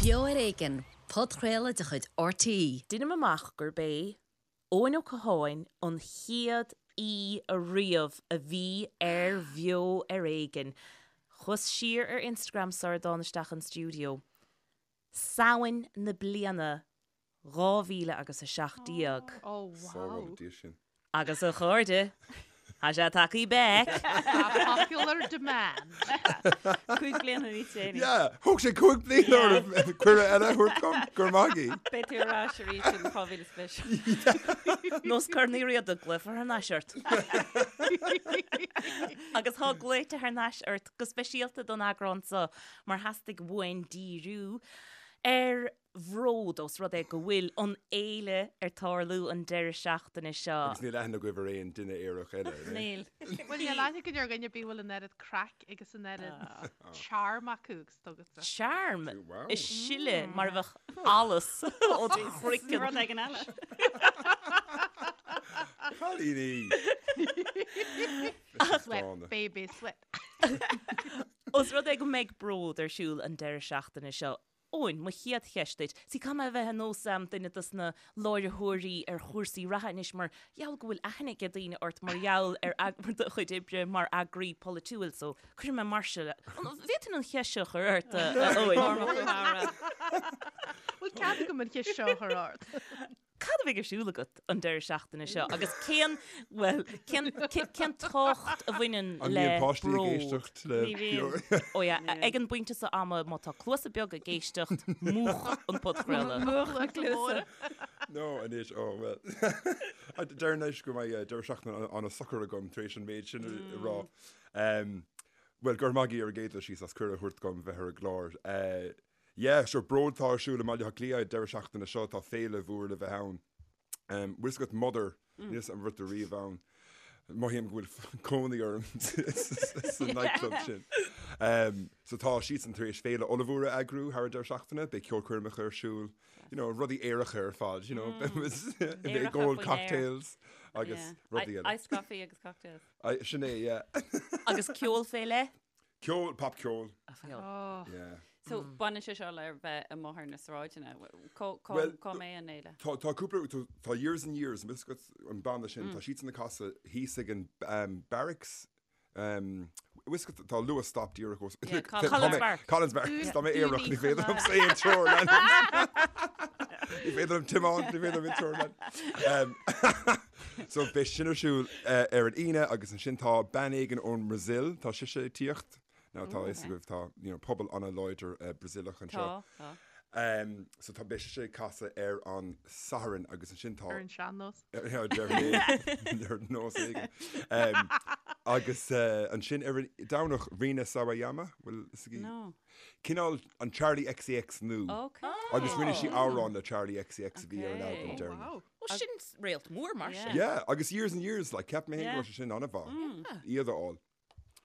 Beo ar Éigean, podchraoladh de chuid RTÉ. Deinim amach gurb é Eoin Ó Catháin an chéad aoi ariamh a bhí ar Bheo ar Éigean. Chuas siar ar Instagram sara dtána isteach an stiúideo. Samhain na bliana 2000 agus 17. Oh wow. Agus a chairde, tá sé tagthaí back. By popular demand. 5 bliana níos déanaí. Yeah, thóg sé 5 bliana orm cuireadh eile a thabhairt dom, go raibh maith agaibh. Beidh tú ar ais arís in 2020. Nós Corn Uí Riada, glaofar thar n-ais ort. Agus tá glaoite thar n-ais ort go speisialta don eagrán seo mar theastaigh uainn díriú ar Bhród, ós rud é go bhfuil an fhéile ar tarlú an deireadh seachtaine seo. Agus níl aithne agaibh ar aon duine aerach eile, an é? Níl. Bhuel, níl aithne againn ar dhuine ar bith a bhfuil an oiread craic agus an oiread charm acu agus atá agatsa. Charm? Wow. Ag sileadh mar a bheadh allas ó do chraiceann. Rud éigin eile. Cailíní! Sweat, baby, sweat. Ós rud é go mbeidh Bród ar siúl an deireadh seachtaine seo, Eoin, mo chéad cheist duit. See, caithfidh mé a bheith ar nós duine dos na láithreoirí ar chúrsaí reatha anois mar gheall go bhfuil aithne ag daoine ort mar gheall ar do chuid oibre mar eagraí polaitiúil so cuirfidh mé mar seo. An bhféadfainn an cheist seo a chur ort, a Eoin? Bhfuil cead agam an cheist seo a chur ort? Cad a bheidh ar siúl agat an deireadh seachtaine seo agus cén, bhuel, cén, cén tábhacht a bhaineann An le mbíonn páistí ag bród? éisteacht le Ní bhíonn. Ó yeah, ag an bpointe seo ama, má tá cluasa beaga ag éisteacht, múch an podchraoladh. Múch na cluasa. No, anois, ó, bhuel. Deireann anois go mbeidh deireadh seachtaine an-socair agam tar éis an méid sin a rá. Bhuel, go raibh maith agaibh ar an gcéad dul síos as cuireadh a thabhairt dom bheith ar an gclár. Yeah, sure, Bród atá ar siúl i mBaile Átha Cliath an deireadh seachtaine seo, tá féile mhór le bheith ann. Bhfuil fhios agat Mother, níl fhios agam an raibh tú riamh ann. Mothaím go bhfuil cónaí orm sa nightclub sin. So tá siadsan tar éis féile ollmhór a eagrú thar an deireadh seachtaine, beidh ceolchoirmeacha ar siúl, you know, rudaí aeracha ar fad, you know, beidh ag ól cocktails agus rudaí eile. Iced coffee agus cocktails. Sin é, yeah. Agus ceol fé leith? Ceol, popcheol. Oh. Yeah. So, baineann sé seo le bheith amuigh ar na sráideanna. Cá Well, cá mbeidh an fhéile? Tá tá cúpla tá tá Years and Years, an bhfuil fhios agat an banna sin, tá siadsan ag casadh thíos ag an um, Barracks um, bhfuil fhios agat tá Luas stop díreach os Yeah, Tá Collins mé- Barracks. Collins Barracks, tá mé aerach, ní féidir liom aon treoir a leanúint. Ní féidir liom tiomáint, ní féidir liom aon treoir a leanúint. Um, So beidh sin ar siúl ar an Aoine agus ansin tá bean éigin ón mBrasaíl, tá sise ag tíocht. Now tá a fhios agaibh tá you know, pobal an-láidir Brasaíleach anseo. Tá, tá. Um, so tá beidh sise ag casadh ar an Satharn agus ansin tá Ar an sean-nós. ar nós éigin. Um, agus uh, ansin ar an Domhnach Rina Sawayama, bhfuil fhios agaibh? No. Cineál an Charli XCX nua. Okay. Agus rinne sí amhrán le Charli XCX a bhí ar an albam Okay. deireanach. Wow. Ó sin réalt mór mar sin. Yeah, agus Years and Years, like, cheap mé féin go raibh sé sin an-mhaith, iad a fháil.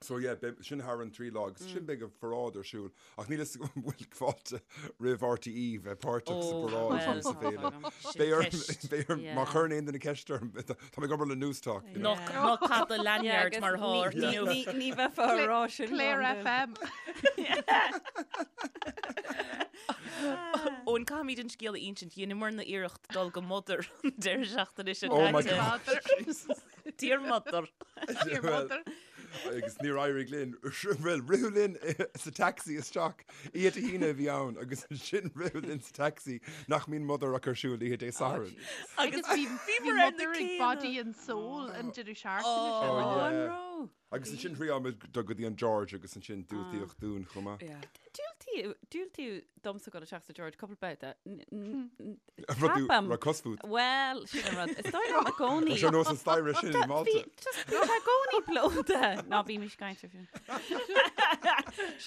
So yeah, beidh sin thar an trí lá agus sin beidh an pharáid ar siúl. Ach níl fhios agam an bhfuil fáilte roimh RTÉ bheith páirteach sa Ó, pharáid well, nó sa bhféile. sin Beidh orm, ceist. beidh orm, má Yeah. chuireann aon duine ceist orm, tá mé ag obair le Newstalk. you know. Ná ná caith do lanyard mar atá ort inniu. Ní ní bheifeá ag rá sin. Clare gan FM. Eoin, caithfimid an scéal a insint. Dheineamarna iarracht dul go Mother an deireadh seachtaine seo Oh my caite. God. Mother. Dear Mother. Dear Mother. Agus níor éirigh linn, bhuel, ritheadh linn sa taxi isteach, oíche Dé hAoine a bhí ann agus ansin ritheadh linn sa taxi nach mbíonn Mother ach ar siúl oíche Dé Sathairn. Agus bhí bhí bhíomar ar na Mother ag céanna. Body and Soul an deireadh seachtaine Oh, seo. yeah. An raibh? Agus ansin thriáil muid dul go dtí an George agus ansin diúltaíodh dúinn chomh maith. Yeah. Diúltaíodh, diúltaíodh domsa dul isteach sa George cúpla babhta. Rud tú, Ceapaim. raibh cos fút. Bhuel, sin an rud. Is dóigh liom i gcónaí. Tá sé ar nós an staighre sin i Malta. Bhí, just, bhí sé i gcónaí plódaithe. Ná bímis ag caint air sin.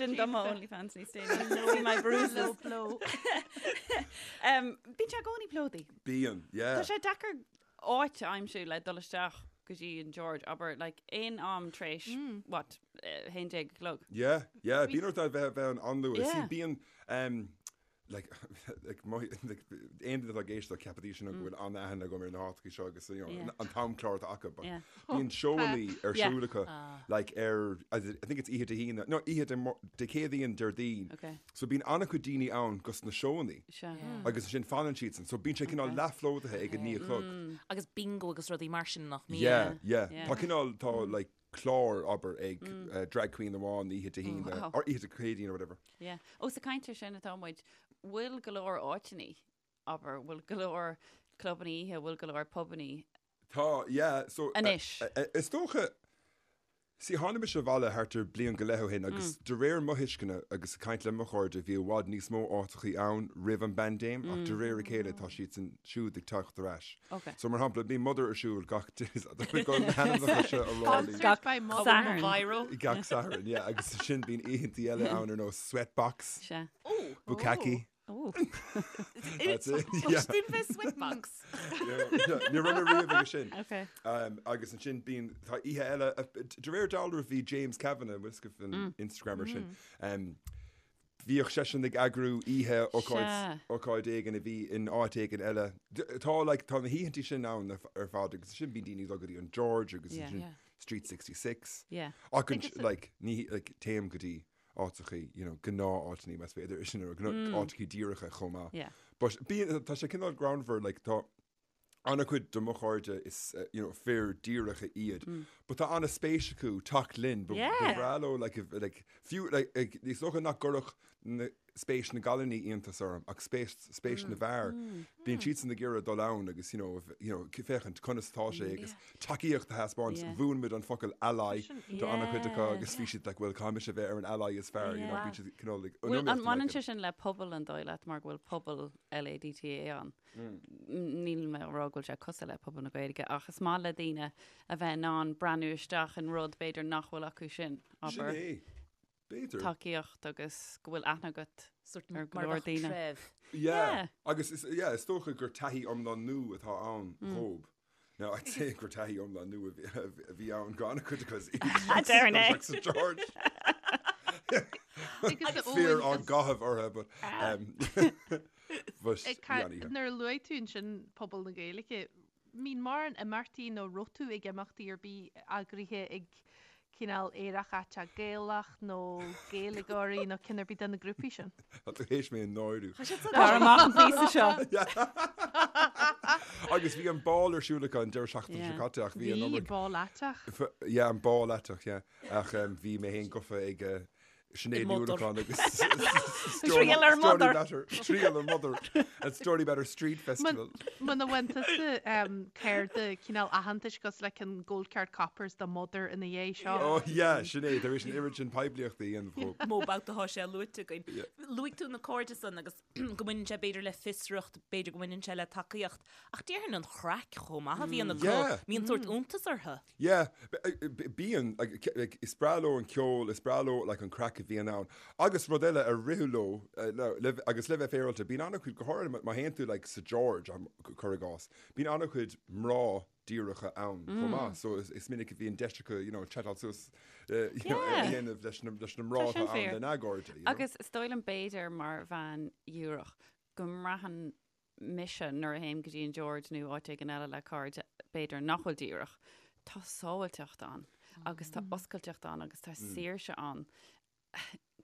Sin do mo OnlyFans níos déanaí. See my bruises. Low blow. Um, bíonn sé i gcónaí plódaithe. Bíonn, yeah. Tá sé deacair áit a aimsiú le dul isteach go dtí an George, abair, like, aon am tar éis, what, 11 a chlog. Yeah, yeah, bíonn ort a bheith bheith ann an-luath. Yeah. See, bíonn, um, Like, like, mo, like, aon duine atá ag éisteacht ceapfaidís sin go bhfuil an-aithne agam ar na háiteachaí seo agus you know, Yeah. an t-amchlár atá acu, but Yeah. bíonn seóannaí ar Yeah. siúl acu, like, ar, I think it's oíche Dé hAoine, no, oíche Dé Mar- Dé Céadaoin, Déardaoin. Okay. So bíonn an-chuid daoine ann gus na seóannaí. Sea. Agus ansin fanann siadsan. So bíonn sé cineál Okay. leathphlódaithe ag a 9 a chlog. Agus bingo agus rudaí mar sin nach mbíonn. Yeah, yeah. Yeah. Tá cineál, tá like clár, abair, ag drag queen amháin oíche Dé hAoine, Wow. or oíche Dé Céadaoin or whatever. Yeah. Ós ag caint air sin atá muid, bhfuil go leor áiteannaí, abair, bhfuil go leor clubanna oíche, bhfuil go leor pubannaí Tá, yeah, so. Anois. Is dócha, see, tháinig mise abhaile thart ar bliain go leith ó shin agus de réir mo thuisceana agus ag caint le mo chairde bhí i bhfad níos mó áiteachaí ann roimh an bpaindéim ach de réir a chéile tá siadsan siúd ag teacht ar ais. Ok. So mar shampla, bíonn Mother ar siúl gach na hainmneacha seo a rá linn. Gach Sponsored by Mother. Satharn. Gach Satharn, yeah, agus sin bíonn oícheantaí eile ann ar nós Sweatbox, Sea. Bukkake. Oh. That's it, yeah. Dún bheith sweatbox. Ní raibh mé riamh aige sin. Okay. Um, agus ansin bíonn tá oíche eile de réir dealraimh bhí James Kavanagh bhfuil fhios agaibh an Instagrammer sin. Um, bhíodh seisean ag eagrú oíche ócáid Sea. ócáid éigin a bhí in áit éigin eile. D- Tá like, tá na hoícheantaí sin ann ar ar fad agus sin bíonn daoine ag dul go dtí an George agus Yeah. ansin Yeah. Street 66. Yeah. Ach an, Agus- like, ní like, téim go dtí áiteachaí, you know, gnáth-áiteannaí más féidir é sin a rá, áiteachaí díreacha chomh maith. Yeah. But bíonn, tá sé cineál greannmhar, like, tá an-chuid de mo chairde is, you know, fir díreacha iad, but tá an-spéis acu teacht linn, ba Yeah. ba bhreá leo, like, if, like, fiú, like, ag, is dócha nach gcuirfeadh na, spéis na gcailíní iontas orm ach spéis, spéis na bhfear. Bíonn siadsan ag iarraidh dul ann agus, you know, you know, féachaint conas atá sé agus tacaíocht a thaispeáint. Yeah. Mhúin muid an focal ally do an-chuid acu agus bhí siad like, well, caithfidh mise bheith ar an ally is fearr, you know, Yeah. bíonn siad cineál ag Bhfuil, an iomaíocht mbaineann like sé sin le pobal an dóigh leat mar go bhfuil pobal LADTA ann? Níl mé ag rá go bhfuil sé cosúil le pobal na Gaeilge ach is maith le daoine a bheith in ann breathnú isteach in rud b'fhéidir nach bhfuil acu sin, Sin abair. é. B'fhéidir. Tacaíocht agus go bhfuil aithne agat Sort ar go mar leor bheadh daoine. treibh. Yeah. Yeah. Agus is, yeah, is dócha gur taithí iomlán nua atá ann dhób. Now, I'd say gur taithí iomlán nua a bhí- a bhí ann do an-chuid acu Deireann é. Sa George. Agus Fear Eoin, á is- gcaitheamh orthu, but, um, but Ag bhí ca- an-oíche. Nuair a luaigh tú ansin pobal na Gaeilge, mbíonn mórán imeachtaí nó raibh tú ag imeachtaí ar bith eagraithe ag cineál aerach aiteach Gaelach nó Gaeilgeoirí nó ceann ar bith de na grúpaí sin? Tá tú théis mé a náiriú. Tar amach an píosa seo. Agus bhí an ball ar siúl acu an deireadh seachtaine seo Yeah. caite ach bhí an Bhí iomarca ball aiteach. Yeah, an ball aiteach, yeah. Ach um, bhí mé féin gafa ag uh, Sinéad Ní Mother. Uallacháin agus Triail ar Story Mother. Matter, Triail ar Mother at Stoneybatter Street Festival. Muna bhfaigheann tusa um, cárta cineál aitheantais cosúil le an Gold Card Coppers do Mother ina dhiaidh seo. Oh yeah, sin é, tar éis an oiread sin poiblíochta a dhéanamh dhób. Mó babhta atá sé luaite againn. Luaigh tú na cairde san agus go mbaineann sé b'fhéidir le fiosracht, b'fhéidir go mbaineann sé le tacaíocht, ach déarfainn an chraic chomh maith a bhíonn acu, Yeah. mbíonn sórt iontas orthu. Yeah, bíonn, like, is breá leo an ceol, is breá leo like an craic a bhíonn ann. Agus rud eile a ritheadh leo, le, agus le bheith féaráilte, bíonn an-chuid, go háirithe má théann tú like sa George, cuir i gcás, bíonn an-chuid mná díreacha ann chomh maith. So is, is minic a bhíonn deis acu, you know, chatáil suas, you know, a dhéanamh leis na, leis na mná Tá sin atá ann fíor. lena gcairde, you know. Agus is dóigh liom b'fhéidir mar bhean dhíreach go mbraitheann mise nuair a théim go dtí an George nó áit éigin eile le cairde b'fhéidir nach bhfuil díreach, tá sábháilteacht ann agus tá oscailteacht ann agus tá saoirse ann.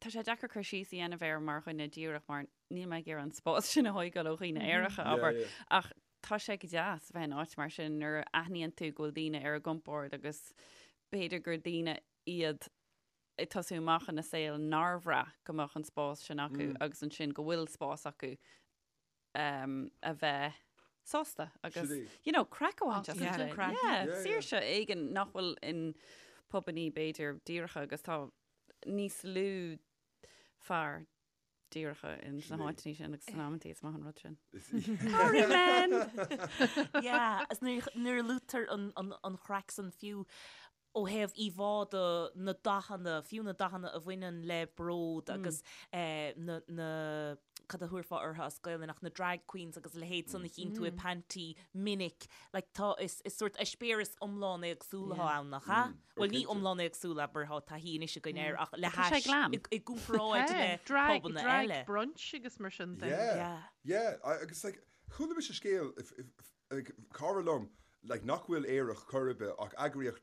Tá sé deacair cur síos a dhéanamh air mar dhuine díreach mar níl mé ag iarraidh an spás sin a thógáil ó dhaoine aeracha, abair, ach tá sé go deas a bheith in áit mar sin nuair a aithníonn tú go bhfuil daoine ar a gcompord agus b'fhéidir gur daoine iad ag tosú amach ina saol nár bhraith go mbeadh an spás sin acu agus ansin go bhfuil spás acu um, a bheith sásta agus you know, craic a bhaint as an Craic. Yeah, saoirse éigin nach bhfuil in pubannaí b'fhéidir díreacha agus tá níos lú fear díreacha in sna háiteanna sin agus san amantaí is maith an rud sin. Sorry men! Yeah, is nuair nuair a luaitear an, an, an chraic san fiú. Ó thaobh íomhá de, na dathanna, fiú na dathanna a bhaineann le bród agus na, na, cad a thabharfá orthu as Gaelainn ach na drag queens agus a leithéid san a chíonn tú i Panti minic, like tá, is, is sórt eispéireas iomlán éagsúil atá ann, nach ea? Bhuel ní iomlán éagsúil, abair, tá taithí anois againn air ach le Tá sé hais, glam. i, i gcomparáid le Drag, pubanna drag eile. brunch agus mar sin de. Yeah, Yeah. yeah, agus like, chuala mise scéal, if, if, like, cara liom, like, nach bhfuil aerach chor ar bith ach eagraíodh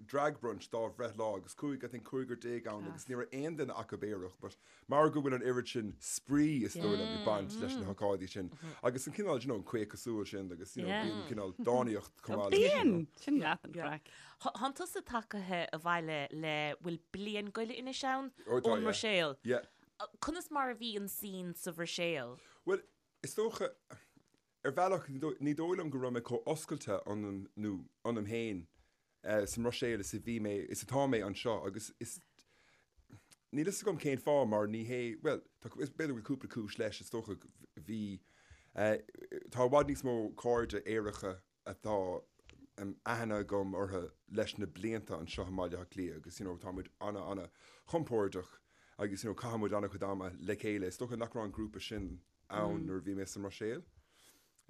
drag brunch dá bhreithlá agus chuaigh I think 15 ann agus ní raibh aon duine acu aerach but mar go bhfuil an oiread sin spraoi is dóigh liom ag baint leis na hócáidí sin agus an cineál you know an caochadh súl sin agus you know bíonn cineál dánaíocht chomh maith leis Bíonn! Sin leath an chraic. Thánn tusa tagaithe abhaile le bhfuil bliain go leith anois ann Ó tá ón yeah. mBruiséil. Yeah. Conas mar a bhí an scene sa Bhruiséil? Bhuel is dócha Ar bhealach, ní dóigh liom go raibh mé chomh oscailte ionam nó ionam féin sa mBruiséil is a bhí mé, is atá mé anseo agus is, níl fhios agam cén fáth mar ní hé, bhuel, tá, b'fhéidir go bhfuil cúpla cúis leis, is dócha, bhí, tá i bhfad níos mó cairde aeracha atá aithne agam orthu leis na blianta anseo i mBaile Átha Cliath agus you know tá muid ana ana chompordach agus you know caitheann muid ana chuid ama le chéile, is dócha nach raibh an grúpa sin ann nuair a bhí mé sa mBruiséil.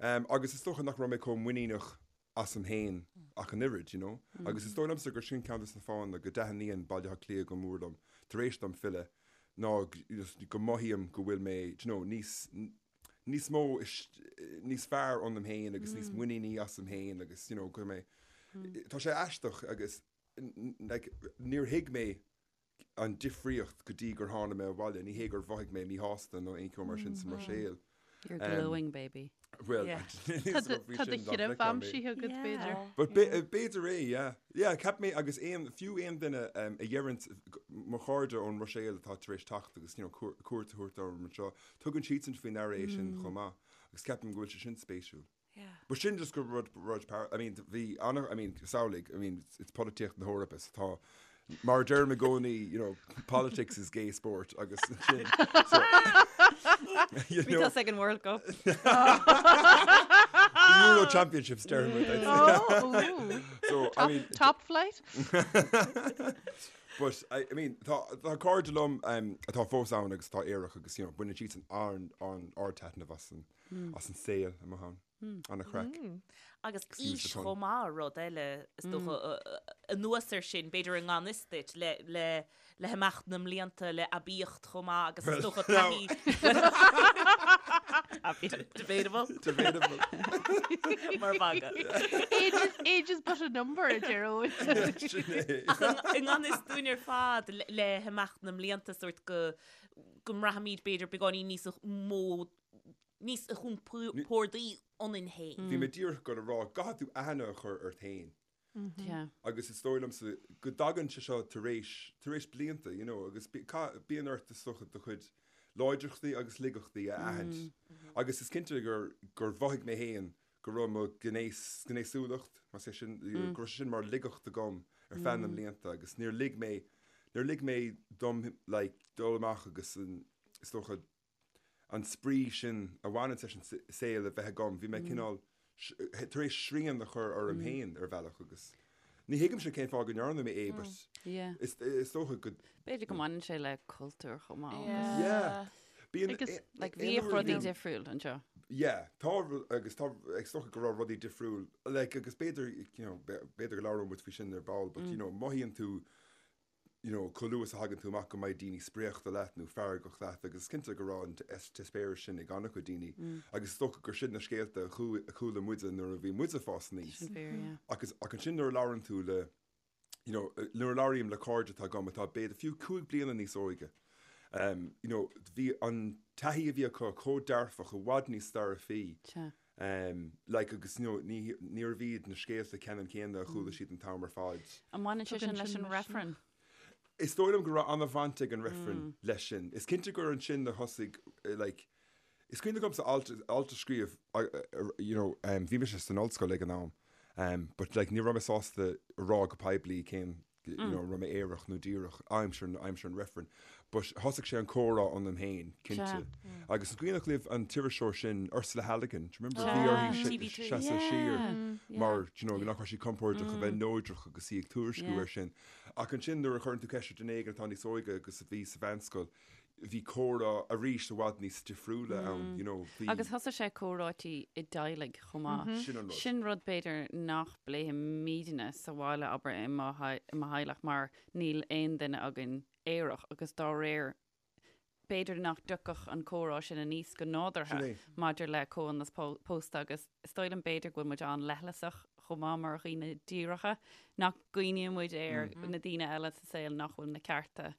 Agus is dócha nach raibh mé chomh muiníneach asam féin ach an oiread, you know. Agus is dóigh liomsa gur sin ceann de na fáthanna go dtaitníonn Baile Átha Cliath go mór liom tar éis dom filleadh ná go mothaím go bhfuil mé, do you know, níos, níos mó, níos fearr ionam féin agus níos muiníní asam féin agus, you know, go mé, tá sé aisteach agus like níor thuig mé an difríocht go dtí gur tháinig mé abhaile. Ní hé gur mhothaigh mé míshásta nó aon cheo mar sin sa mBruiséil. You're glowing, baby. Bhuel, Tá do threibh aimsithe agat, b'fhéidir. But b'fhéidir é, yeah. Yeah, cheap mé agus aon, fiú aon duine a dheireann, mo chairde ón mBruiséil atá tar éis teacht agus, you know, cuairt a thabhairt orm anseo, tugann siadsan faoi ndeara é sin chomh maith agus ceapaim go bhfuil sé sin spéisiúil. But sin just gur rud, rud par, I mean, bhí ana, I mean, samhlaigh, I mean, it's polaitíocht na hEorpa, so tá, mar a deirim i gcónaí, you know, politics is gay sport agus sin, so, you Bhí know, tusa ag an World Cup. the Euro Championships deirim muid, I'd say. Oh, ooh. So, I mean, Top flight? But, I, I mean, tá, tá cairde liom um, atá fós ann agus atá aerach agus, you know, baineann siadsan an, an ardtaitneamh as an, as an saol amuigh ann. Ana-chraic. Agus aois chomh maith, rud eile, is dócha, anuas air sin, b'fhéidir i ngan fhios duit, le, le, le himeacht na mblianta, le aibíocht chomh maith agus is dócha taithí. Debatable. Debatable. Mar mhagadh. Age is, age is but a number, a deir Eoin. Sin é. Ach i ngan fhios dúinn ar fad, le, le himeacht na mblianta, sórt go, go mbraithimid b'fhéidir beagáinín níos mó níos compórdaí ionainn féin. Bhí mé díreach ag dul a rá, go gcaithfidh tú aithne a chur ort féin. Agus is dóigh liomsa go dtagann sé seo tar éis, tar éis blianta, you know, agus bíonn ort is dócha do chuid láidreachtaí agus laigeachtaí a aithint. Agus is cinnte gur, gur mhothaigh mé féin go raibh mo ghnéas, gnéasúlacht, más é sin, go raibh sé sin mar laigeacht agam ar feadh na mblianta agus níor lig mé, níor lig mé dom like dul amach agus an, is dócha, an spraoi sin a bhaineann leis an saol a bheith agam, bhí mé cineál tar éis srian a chur orm féin ar bhealach agus ní thuigimse cén fáth go ndearna mé é but is dócha go. B'fhéidir go mbaineann sé le cultúr chomh maith agus. Yeah. Bíonn. Agus like bhíodh rudaí difriúil anseo. Yeah, tá agus tá is dócha go raibh rudaí difriúil like agus b'fhéidir you know b'fhéidir go labhróidh muid faoi sin ar ball but you know mothaíonn tú you know, chomh luath is a thagann tú amach go mbeidh daoine spréachta leat nó feargach leat agus is cinnte go raibh an t-eispéireas sin ag an-chuid daoine agus is dócha gur sin na scéalta a chuala muide nuair a bhí muide ag fás aníos. Sin fíor, yeah. Agus, ach ansin nuair a labhrann tú le, you know, nuair a labhraím le cairde atá agam atá b'fhéidir fiú 5 bliana níos óige, um, you know, bhí an taithí a bhí acu chomh dearfach, i bhfad níos dearfaí. Sea. Um, like, agus you know, ní, níorbh iad na scéalta ceannann céanna a chuala siad an t-am ar fad. An mbaineann sé Tugann sin leis sin an misneach. reifreann? Is dóigh liom go raibh an-bhaint ag an reifreann leis sin. Is cinnte gur ansin a thosaigh, eh, like, is cuimhin liomsa alt, alt a scríobh, uh, uh, you know, um, bhí mise san ollscoil ag an am, um, but like, ní raibh mé sásta a rá go poiblí cén, you know, raibh mé aerach nó díreach aimsir, aimsir an reifrinn. But thosaigh sé an comhrá ionam féin, cinnte. Agus an cuimhneach libh an t-iriseoir sin, Ursula Halligan, do you remember? Bhí uirthi seasamh siar mar, do you know, nach raibh sí compordach a bheith neodrach agus í ag tuairisciú air sin. Ach ansin nuair a chuireann tú ceist ar duine éigin atá níos óige agus a bhí sa mheánscoil, bhí comhrá arís i bhfad níos difriúla ann, you know, bhí. Agus thosaigh sé comhráití i dteaghlaigh chomh maith. Sin an rud. Sin rud b'fhéidir nach bpléimidne sa bhaile, abair, i mo theaghlach mar níl aon duine againn aerach agus dá réir b'fhéidir nach dtiocfadh an comhrá sin aníos go nádúrtha maidir le comhionannas pósta agus is dóigh liom b'fhéidir go bhfuil muid an-leithleasach chomh maith mar dhaoine díreacha, nach gcuimhníonn muid ar na daoine eile sa saol nach bhfuil na cearta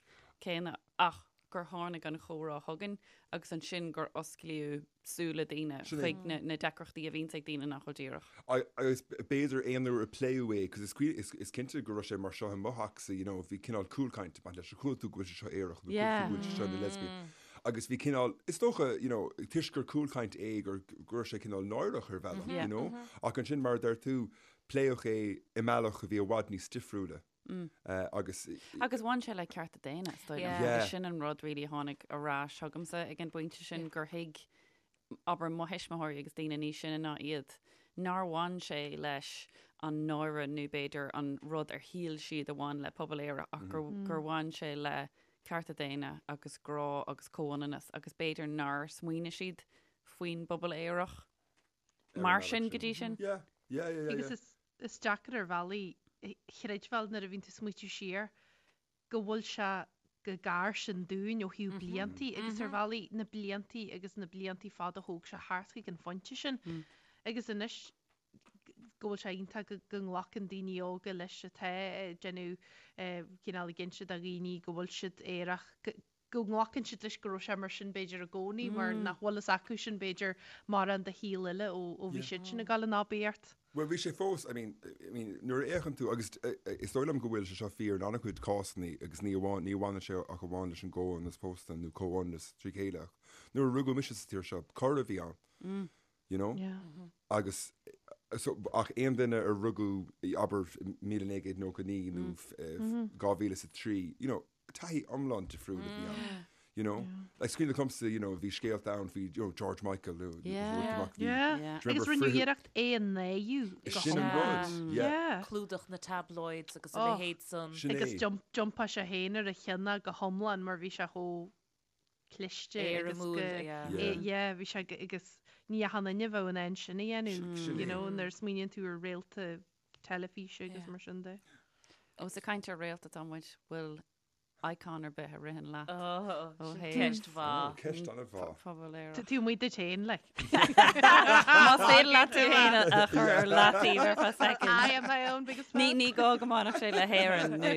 céanna ach gur tháinig an chomhrá chugainn agus ansin gur osclaíodh súile daoine chuig na deacrachtaí a bhíonns ag daoine nach bhfuil díreach. Agus b'fhéidir aon uair a pléadh é, cos is cinnte go raibh sé mar seo i mo theachsa, you know, bhí cineál cúlchaint ag baint leis, ar chuala tú go bhfuil sé seo aerach nó chuala tú go bhfuil sé seo ina lesbian. Agus bhí cineál, is dócha, you know, toisc gur cúlchaint é gur go raibh sé cineál náireach ar bhealach, you know. Ach ansin mar a deir tú, pléadh é i mbealach a bhí i bhfad níos difriúla. Agus. Agus bhain sé le cearta daonna, is dóigh liom. Agus sin an rud really a tháinig ar ais chugamsa ag an bpointe sin gur thuig, abair, mo thuismitheoirí agus daoine níos sine ná iad, nár bhain sé leis an náire nó b'fhéidir an rud ar shíl siad a bhain le pobal aerach ach gur, gur bhain sé le cearta daonna agus grá agus comhionannas agus b'fhéidir nár smaoinigh siad faoin bpobal aerach mar sin go dtí sin. Yeah, yeah, yeah, yeah. Agus is Is deacair ar bhealaí a chreidbheáil nuair a bhíonn tú ag smaoitiú siar go bhfuil sé chomh gar sin dúinn ó thaobh bliantaí agus ar bhealaí na bliantaí agus na bliantaí fada a thóg sé thart chuig an phointe sin. Agus anois go bhfuil sé iontach go nglacann daoine óga leis atá ag déanamh cineál ag inse do dhaoine go bhfuil siad aerach, go nglacann siad leis go raibh sé mar sin b'fhéidir i gcónaí mar nach bhfuil fhios acu sin b'fhéidir mórán de shaol eile ó bhí siad sin ag dul in aibíocht. Bhuel bhí sé fós, I mean, I mean nuair a fhéachann tú agus is dóigh liom go bhfuil sé seo fíor in an-chuid cásanna agus ní amháin, ní bhaineann sé ach amháin leis an gcomhionannas pósta nó comhionannas trí chéile ach nuair a rugadh mise sa tír seo, coir a bhí ann. You know? Agus so ach aon duine a rugadh abair 1999 nó 2003, you know, taithí iomlán difriúil a bhí ann. You know? Like is cuimhin liomsa, you know, bhí scéalta ann faoi, you know, George Michael nó Yeah. Yeah. Agus rinneadh iarracht é a náiriú go Sin an rud, yeah. Clúdach na tabloids agus a leithéid san. Sin é. Agus d'iompaigh sé féin ar a cheann go hiomlán mar bhí sé chomh cliste agus go, yeah, bhí sé agus ní achan duine a bheadh in ann sin a dhéanamh, you know, nuair a smaoiníonn tú ar réalta teilifíse agus mar sin de. Ós ag caint ar réalta atá muid, bhfuil icon ar bith a ritheann leat? Ó, sin ceist mhaith. Ceist an-mhaith. Pobal aerach. Tú amuigh duit féin, like. Más féidir leat tú féin a chur ar leataobh ar feadh soicind. I am my own biggest fan. Ní gá go mbainfeadh sé le hÉirinn nó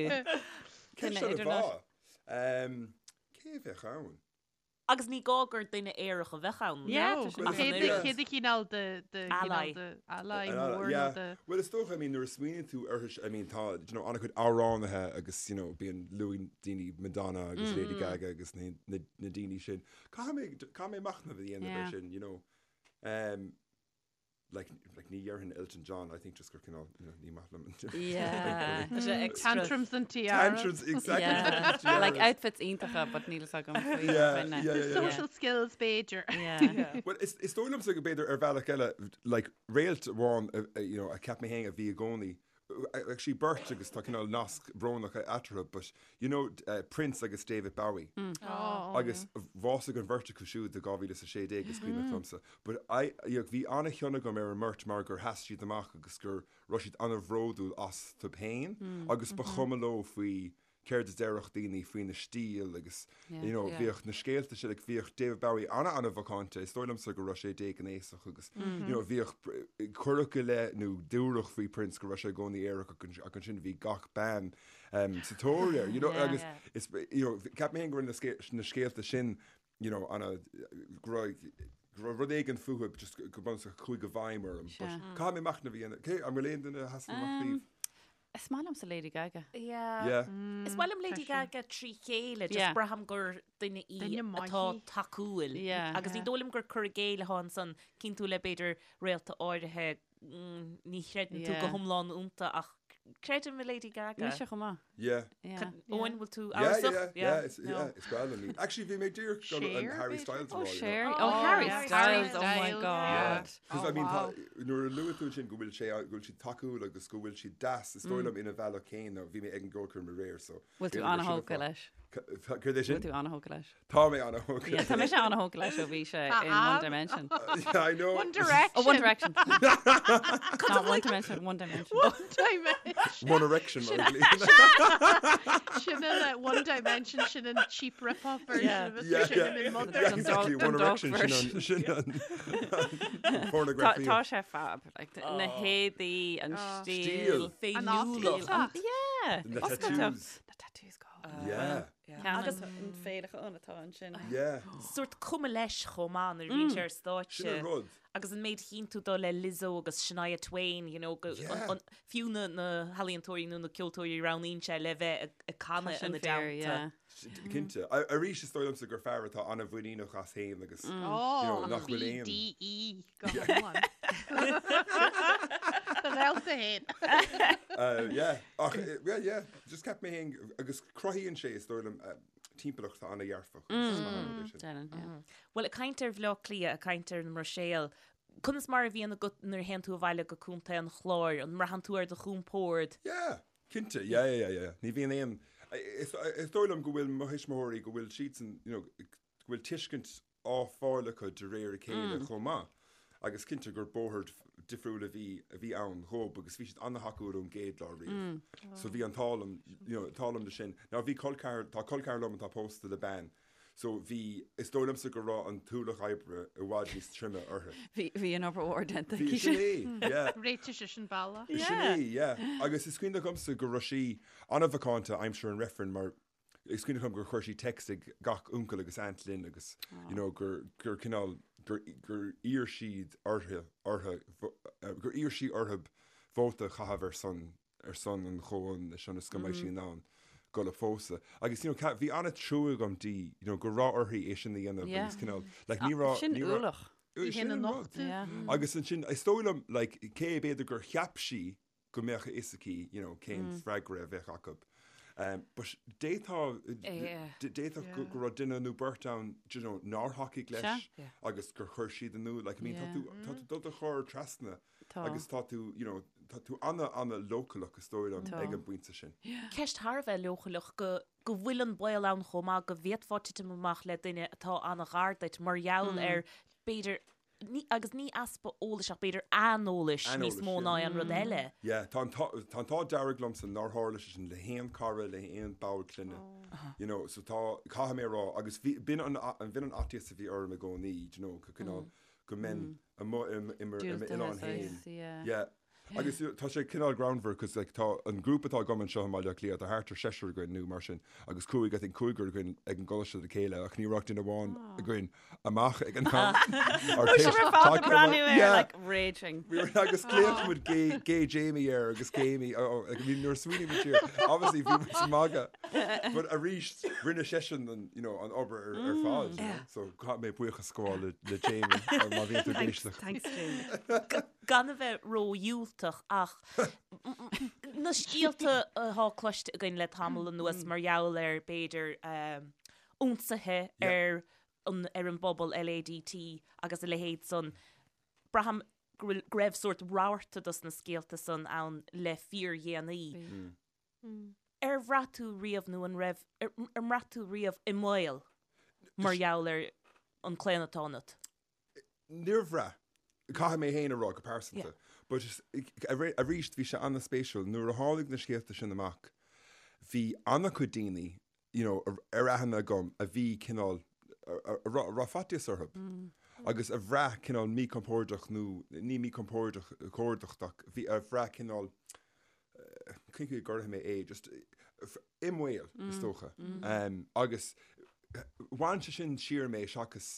Ceist an-mhaith. Cé a bheadh ann? Agus ní gá gur duine aerach a bheadh ann. Yeah, tá sé. Cé do chineál de de Ally. de ally mór nó de. Bhuel is dócha, I mean nuair a smaoiníonn tú uirthi, I mean tá, you know, an-chuid amhránaithe agus, you know, bíonn luann daoine Madonna agus Lady Gaga agus na na na daoine sin. Caithfidh mé caithfidh mé machnamh a dhéanamh ar sin, you know. Um, Like, like ní dhéarfainn Elton John, I think just gur cineál, you know, ní maith liom an Yeah. Tá sé extra. Tantrums and tiaras. Tantrums, exactly. Yeah. Tantrums, tiaras. Like outfits iontacha, but níl fhios agam faoi Yeah, dhuine. yeah, yeah, yeah. Social skills b'fhéidir. Yeah. Well, is, is dóigh liomsa go b'fhéidir ar bhealach eile, like, réalt amháin, uh, uh, you know, a cheap mé féin a bhí i gcónaí, actually beirt agus tá cineál nasc brónach eatarthu, but you know Prince agus David Bowie. Oh. Agus bhásaigh an bheirt acu siúd i 2016 is cuimhneach liomsa. But I, you know, bhí an-chion agam ar an mbeirt mar gur sheas siad amach agus go raibh siad an-bhródúil astu féin agus ba chuma leo faoi céard a déarfadh daoine faoina stíl agus you know bhíodh na scéalta sin like bhíodh David Bowie ana-ana-mhacánta, is dóigh liomsa go raibh sé déghnéasach agus you know bhíodh cuireadh i leith nó dúradh faoi Prince go raibh sé i gcónaí aerach ach ansin bhí gach bean um, sa tóir air you know agus is you know ceap mé féin go raibh na scéalta sin you know ana go raibh go raibh rud éigin fúthu just go bunúsach a chuaigh i bhfeidhm orm but caithfidh mé machnamh a dhéanamh. Cé an bhfuil aon duine a sheasann amach daoibh? Is maith liomsa Lady Gaga. Yeah. Yeah. Is maith liom Lady Gaga trí chéile, just Yeah. braithim gur duine í Duine maith atá í. tacúil. Yeah. Agus ní dóigh liom gur cur i gcéill atá ansan, cinntiú le b'fhéidir réalta áirithe, mm, ní chreideann tú go Yeah. hiomlán iontu ach. Creidim i Lady Gaga. Mise chomh maith. Yeah. Yeah. Eoin, bhfuil tú Yeah, amhrasach? yeah, yeah, it's, yeah, is breá liom í. Actually, bhí mé díreach ag dul an Harry Styles a Oh, rá, you know. Cher. Oh, Harry yeah, Styles. Harry Oh my Styles. God. Because Oh, I mean, wow. tá, nuair a luaigh tú ansin go bhfuil sé, go bhfuil siad tacúil agus go bhfuil siad deas, is dóigh liom ina bhealach céanna, bhí mé ag an gceolchoirm aréir, so. Bhfuil tú b'fhéidir gur sin an an-thógtha fáth. leis? Céard é sin? Bhfuil tú an-thógtha leis? Tá mé an-thógtha. Yeah, tá mise an-thógtha leis ó bhí sé in One Dimension. Yeah, I know. One Direction. Oh, One Direction. Not One Dimension, One Dimension. One Dimension. One Erection, mar a ghlaonn. Sin an One Dimension, sin an cheap rip-off version Yeah. of it. Yeah, Sin yeah. an Dun mother. Yeah, dog- exactly. dun One dog Erection, sin version. an, sin an Tá pornography. tá sé fab. Like, na héadaí, an stíl. Stíl. An Féiniúlacht. oscailteacht. Yeah. Na Oscailteacht. tattoos. Na tattoos go. Yeah. Agus an féileacán atá ansin. Yeah. Sórt cuma leis chomh maith nuair a bhíonn sé ar stáitse. Sin an rud. Agus an méid a chíonn tú dó le Lizzo agus Shania Twain, you know, go, Yeah. an, an, fiú na, na healaíontóirí nó na ceoltóirí a roghnaíonn sé le bheith ag, ag canadh Sin ina fíor, dteannta. yeah. Cinnte. Arís is dóigh liomsa gur fear atá an-mhuiníneach as féin agus you know, Oh, nach bhfuil aon. BDE go hiomlán. Do réalta féin. Uh, yeah. Ach, eh, yeah, yeah. Just ceap mé féin agus cruthaíonn sé is dóigh liom eh, timpeallacht atá an-dhearfach. agus is maith an rud é sin. Déanann, yeah. Bhuel, ag caint ar Bhaile Átha Cliath, ag caint ar an mBruiséil, conas mar a bhíonn agat nuair a théann tú abhaile go Contae an Chláir? An mbraitheann tú ar do chompord? Yeah, cinnte, yeah, yeah, yeah, yeah. Ní bhíonn aon, is, is dóigh liom go bhfuil mo thuismitheoirí, go bhfuil siadsan, you know, go bhfuil tuiscint á fáil acu de réir a chéile chomh maith. Agus cinnte gur bóthar difriúil a bhí, a bhí ann dhób agus bhí siad an-thacúil ón gcéad lá riamh. So bhí an t-ádh liom, you know, t-ádh liom de sin. Now bhí col ceathar, tá col ceathar liom atá pósta le bean So bhí, is dóigh liomsa go raibh an t-ualach oibre i bhfad níos troime uirthi. Bhí, bhí an obair mhór déanta Bhí, aici sin sin. é, yeah. Réitigh sise an bealach. Sin Yeah. é, yeah. Agus is cuimhin liomsa go raibh sí an-mhacánta aimsir an reifrinn mar is cuimhin liom gur chuir sí text ag gach uncail agus aunt linn agus, you know, gur, gur cineál, gur, gur iarr siad orthu, orthu, gur iarr sí orthu vóta a chaitheamh ar son ar son an chomhionannais ionas go mbeidh sí in ann dul a phósadh. Agus, you know, bhí an-trua agam di, you know, go raibh uirthi é sin a dhéanamh Yeah. agus cineál, like, ní raibh... Sin ní raibh- ualach. Sin Sin an an rud. nochtadh. Yeah. Agus ansin, is dóigh liom, like, cé b'fhéidir gur cheap sí go mbeadh a fhios aici, you know, cén freagra a bheadh acu. Um, but d'fhéadfadh, Yeah. d'fhéadfadh go, go raibh duine nó beirt ann, do you know, nár thacaigh leis Sea. agus gur chuir siad in iúl. Like, I mean, tá Yeah. tú, tá tú dul do chur trasna Tá. Agus tá tú, you know, tá tú ana, ana leochaileach is dóigh liom Tá. ag an bpointe sin. Ceist thar a bheith leochaileach go go bhfuil an baol ann chomh maith go bhféadfá titim amach le duine atá ana-ghar duit mar gheall ar b'fhéidir, ní, agus ní easpa eolais ach b'fhéidir aineolais níos Aineolais, mó yeah. ná aon rud eile. Yeah, tá an t-ádh, tá an t-ádh dearg liomsa nár tharla sé sin le haon cara, le haon ball clainne. You know, so tá, caithfidh mé a rá, agus bhí, b'in an, b'in an fhaitíos a bhí orm i gcónaí, do you know, go cineál, go mbeinn amuigh i m'oileán féin. Yeah. Agus tá sé cineál greannmhar cos like tá an grúpa atá agam anseo i mBaile Átha Cliath, tá thart ar seisear againn nó mar sin agus cúig, I think cúigear againn ag an gcoláiste le chéile ach ní raibh ach duine amháin againn amach ag an am. Bhí sibh ar fad ag breathnú air like raging. We were agus ghlaoigh muid gay, gay Jamie air agus Gamey, oh, oh, I mean nuair a smaoiníonn muid siar, obviously bhí muid ag magadh. But arís, rinne seisean an, you know, an obair ar, ar fad. You know? So caithfidh mé buíochas a ghabháil le, le Jamie má bhíonn tú ag éisteacht. Thanks, Jamie. Gan a bheith ródhiúltach ach na scéalta atá cloiste againn le tamall anuas mar gheall ar b'fhéidir ionsaithe ar an, ar an bpobal LADT agus a leithéid san, braithim go bhfuil, go raibh sórt rabharta dos na scéalta san ann le fíordhéanaí. Ar bhraith tú riamh nó an raibh, ar mbraith tú riamh i mbaol mar gheall ar an claonadh atá ionat? Níor bhraith. Caithfidh mé féin a rá go pearsanta. But arís bhí sé an-spéisiúil nuair a tháinig na scéalta sin amach bhí an-chuid daoine you know ar aithne agam a bhí cineál a raibh faitíos orthu agus a bhraith cineál míchompordach nó ní míchompordach ach bhí a bhraith cineál cén chaoi a gcuirfidh mé é, just i mbaol, is dócha. Agus bhain sé sin siar mé seachas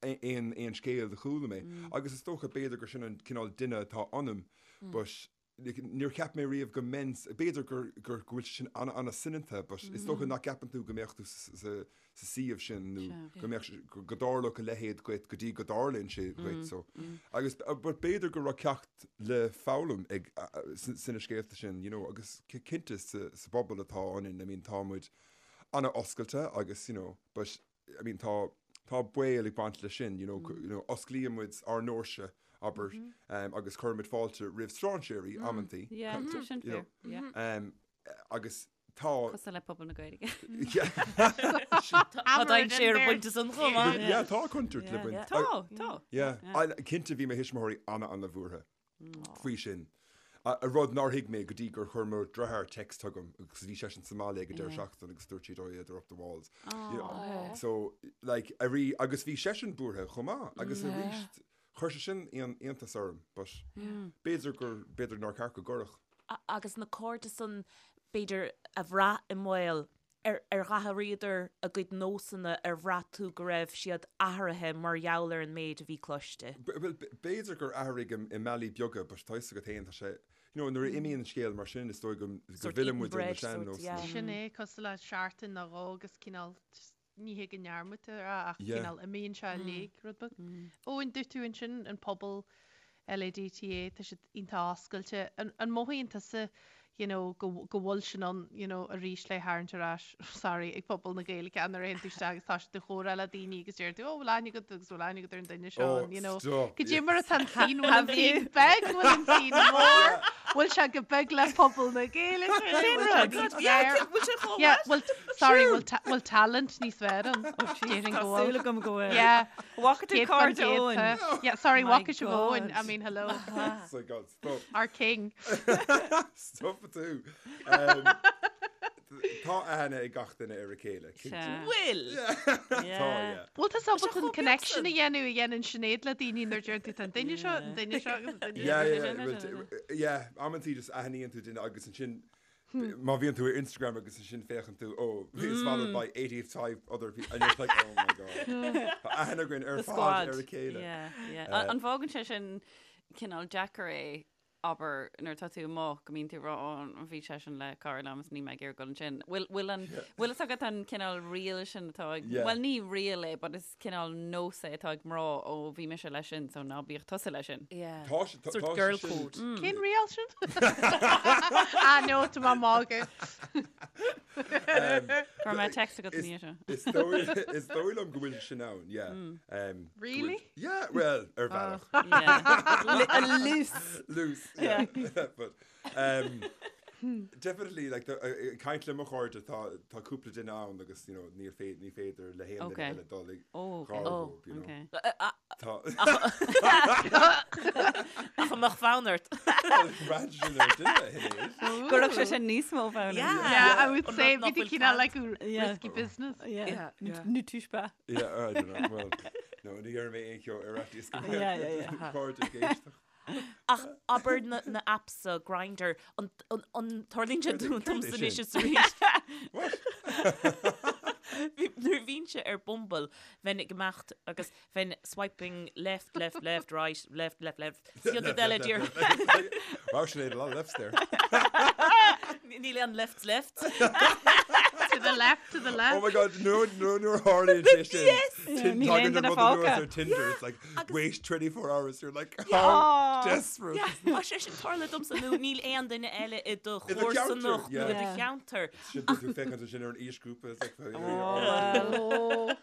aon aon scéal a chuala mé. Agus is dócha b'fhéidir gur sin an cineál duine atá ionam, but. Níor cheap mé riamh go mbeinn, b'fhéidir gur, gur, go bhfuil sé sin an-an-soineanta but is dócha nach gceapann tú go mbeadh tú sa, sa suíomh sin nó go mbeadh, go dtarlódh a leithéid dhuit go dtí go dtarlaíonn sé dhuit so. Agus but b'fhéidir go raibh ceacht le foghlaim ag, sna scéalta sin you know agus cinnte sa, sa bpobal atá ionainn I mean tá muid an-oscailte agus you know but I mean tá, tá baol ag baint leis sin, you know, you know, osclaíonn muid ár ndoirse, abair, um, agus cuirimid fáilte roimh strainséirí amantaí. Yeah, tá sin you know, fair, yeah. Um, agus tá. Cosúil le pobal na Gaeilge. Yeah. Tá dainséar ag baint leis san chomh maith. Yeah, tá contúirt le baint. Tá, tá. Yeah. Cinnte bhí mo thuismitheoirí ana-ana-bhuartha. faoi sin. A rud nár thuig mé go dtí gur chuir mo dheartháir text chugam agus bhí seisean sa mbaile ag an deireadh seachtaine agus dúirt siad oh yeah they're up the walls. You know, So like arís agus bhí seisean buartha chomh maith agus arís chuir sé sin iontas orm but b'fhéidir gur b'fhéidir nár cheart go gcuirfeadh. Agus na cairde san b'fhéidir a bhraith i mbaol Ar athraíodar a gcuid nósanna, ar bhraith tú go raibh siad athraithe mar gheall ar an méid a bhí cloiste? Bhuel, b'fhéidir gur athraigh i mbealaí beaga but tá fhios agat féin, tá sé, you know, nuair a imíonn scéal mar sin is dóigh go bhfilleann muid ar na sean-nósanna. Sin é, cosúil le seachtain nó dhó agus cineál just ní hé go ndearmadtar é ach cineál imíonn sé i léig rud beag. Eoin, dúirt tú ansin an pobal LADTA, tá siad iontach oscailte. An mothaíonn tusa you know, go go bhfuil sin ann you know, arís le tharraingt ar ais, sorry, ag pobal na Gaeilge nuair a théann tú isteach agus tá siad ag comhrá le daoine agus deir tú, oh, bhfuil aithne agat agus bhfuil aithne agat ar an duine seo, Oh, and, you know, stop, Cad é yes. mar atá an scene, bhfuil an scene beag, bhfuil an scene mór, bhfuil sé go beag le pobal na Gaeilge, bhfuil sé níos fearr? Bhfuil sé chomh Yeah, well, sorry, bhfuil ta- bhfuil talent níos fearr ann? Déarfainn Tá go bhfuil. súil agam go bhfuil. Yeah. Bhfaca tú cairde Eoin? Yeah, sorry, My bhfaca sibh Eoin. I God. mean, hello. So God, stop. Our king. Stop tú. Um, tá aithne ag gach duine ar a chéile. cinnte. Sea. Bhfuil? Tá, yeah. Bhfuil tú ábalta an chomh beag connection san. a dhéanamh a dhéanann Sinéad le daoine nuair deir tú tá an duine seo, an duine seo agus an duine Yeah, seo. yeah, yeah, well, t- yeah, amantaí just aithníonn tú duine agus ansin Má bhíonn tú ar Instagram agus ansin féachann tú, oh, he's followed by 85 other people, and you're like, oh my god. Tá aithne againn ar The fad squad. ar a chéile. Yeah, yeah. An bhfágann sé sin cineál deacair é, abair, nuair atá tú amuigh, go mbíonn tú ag rá, oh, bhí seisean le cara liom is níl mé ag iarraidh dul ansin. Bhfuil, bhfuil an, bhfuil fhios agat an cineál riail sin atá ag, Yeah. bhuel ní riail é, but is cineál nós é atá ag mná, ó bhí mise leis sin, so ná bíodh tusa leis sin. Yeah. Tá sé, tá Sort tá sé girl sin- code. Cén riail sin? Ah, no, tá mé ag magadh. Go raibh mé text agat Is- ní seo. Is dóigh is dóigh liom go bhfuil sin ann, yeah. Um, go bhfuil- Really? Yeah, well, ar bhealach. Yeah. A loose. Loose, yeah. But, um, Definitely, like, the, uh, ag caint le mo chairde, tá, tá cúpla duine ann agus, you know, níl fé, ní féidir le haon duine Okay. eile dul ag Oh, okay. gar Oh, dóibh, you know. Okay. Tá, Ach an mbeadh fonn ort. Braitheann sin ar duine, a Shinéad. Go raibh sé sin níos mó fonn. Yeah. Yeah, I would An say rud nach bhí bhfuil cineál cead. like Yeah. risky business. Yeah. Yeah, yeah. Ne touche pas. Yeah, I don't know, well, no, ní dhéarfaidh mé aon cheo ar fhaitíos go Yeah, yeah, yeah. cairde ag éisteacht. Ach abair na na apps so Grindr an an an tarlaíonn sé Céard domsa é anois sin? is arís. Bhí nuair a bhínnse ar Bumble bheinn ag imeacht agus bheinn swiping left left left right left left left Céad rud eile díreach. Wow, Sinéad, a lot of lefts there. Níl aon left left. To the left, to the Oh left. my god, no, no, nuair a tharlaíonn sé sin. Yes! Tin- Níl Tagann aon an duine rud anuas fágtha. ar Tinder, it's like, wait 24 hours, you're like, how Oh. desperate. Yeah, tá sé sin tarlaithe domsa nó níl aon duine eile i do I do cheantar, chomharsanacht nó yeah. i do Yeah. cheantar. Sin bíonn tú féachaint ansin ar an aoisghrúpa, it's like, oh, Oh.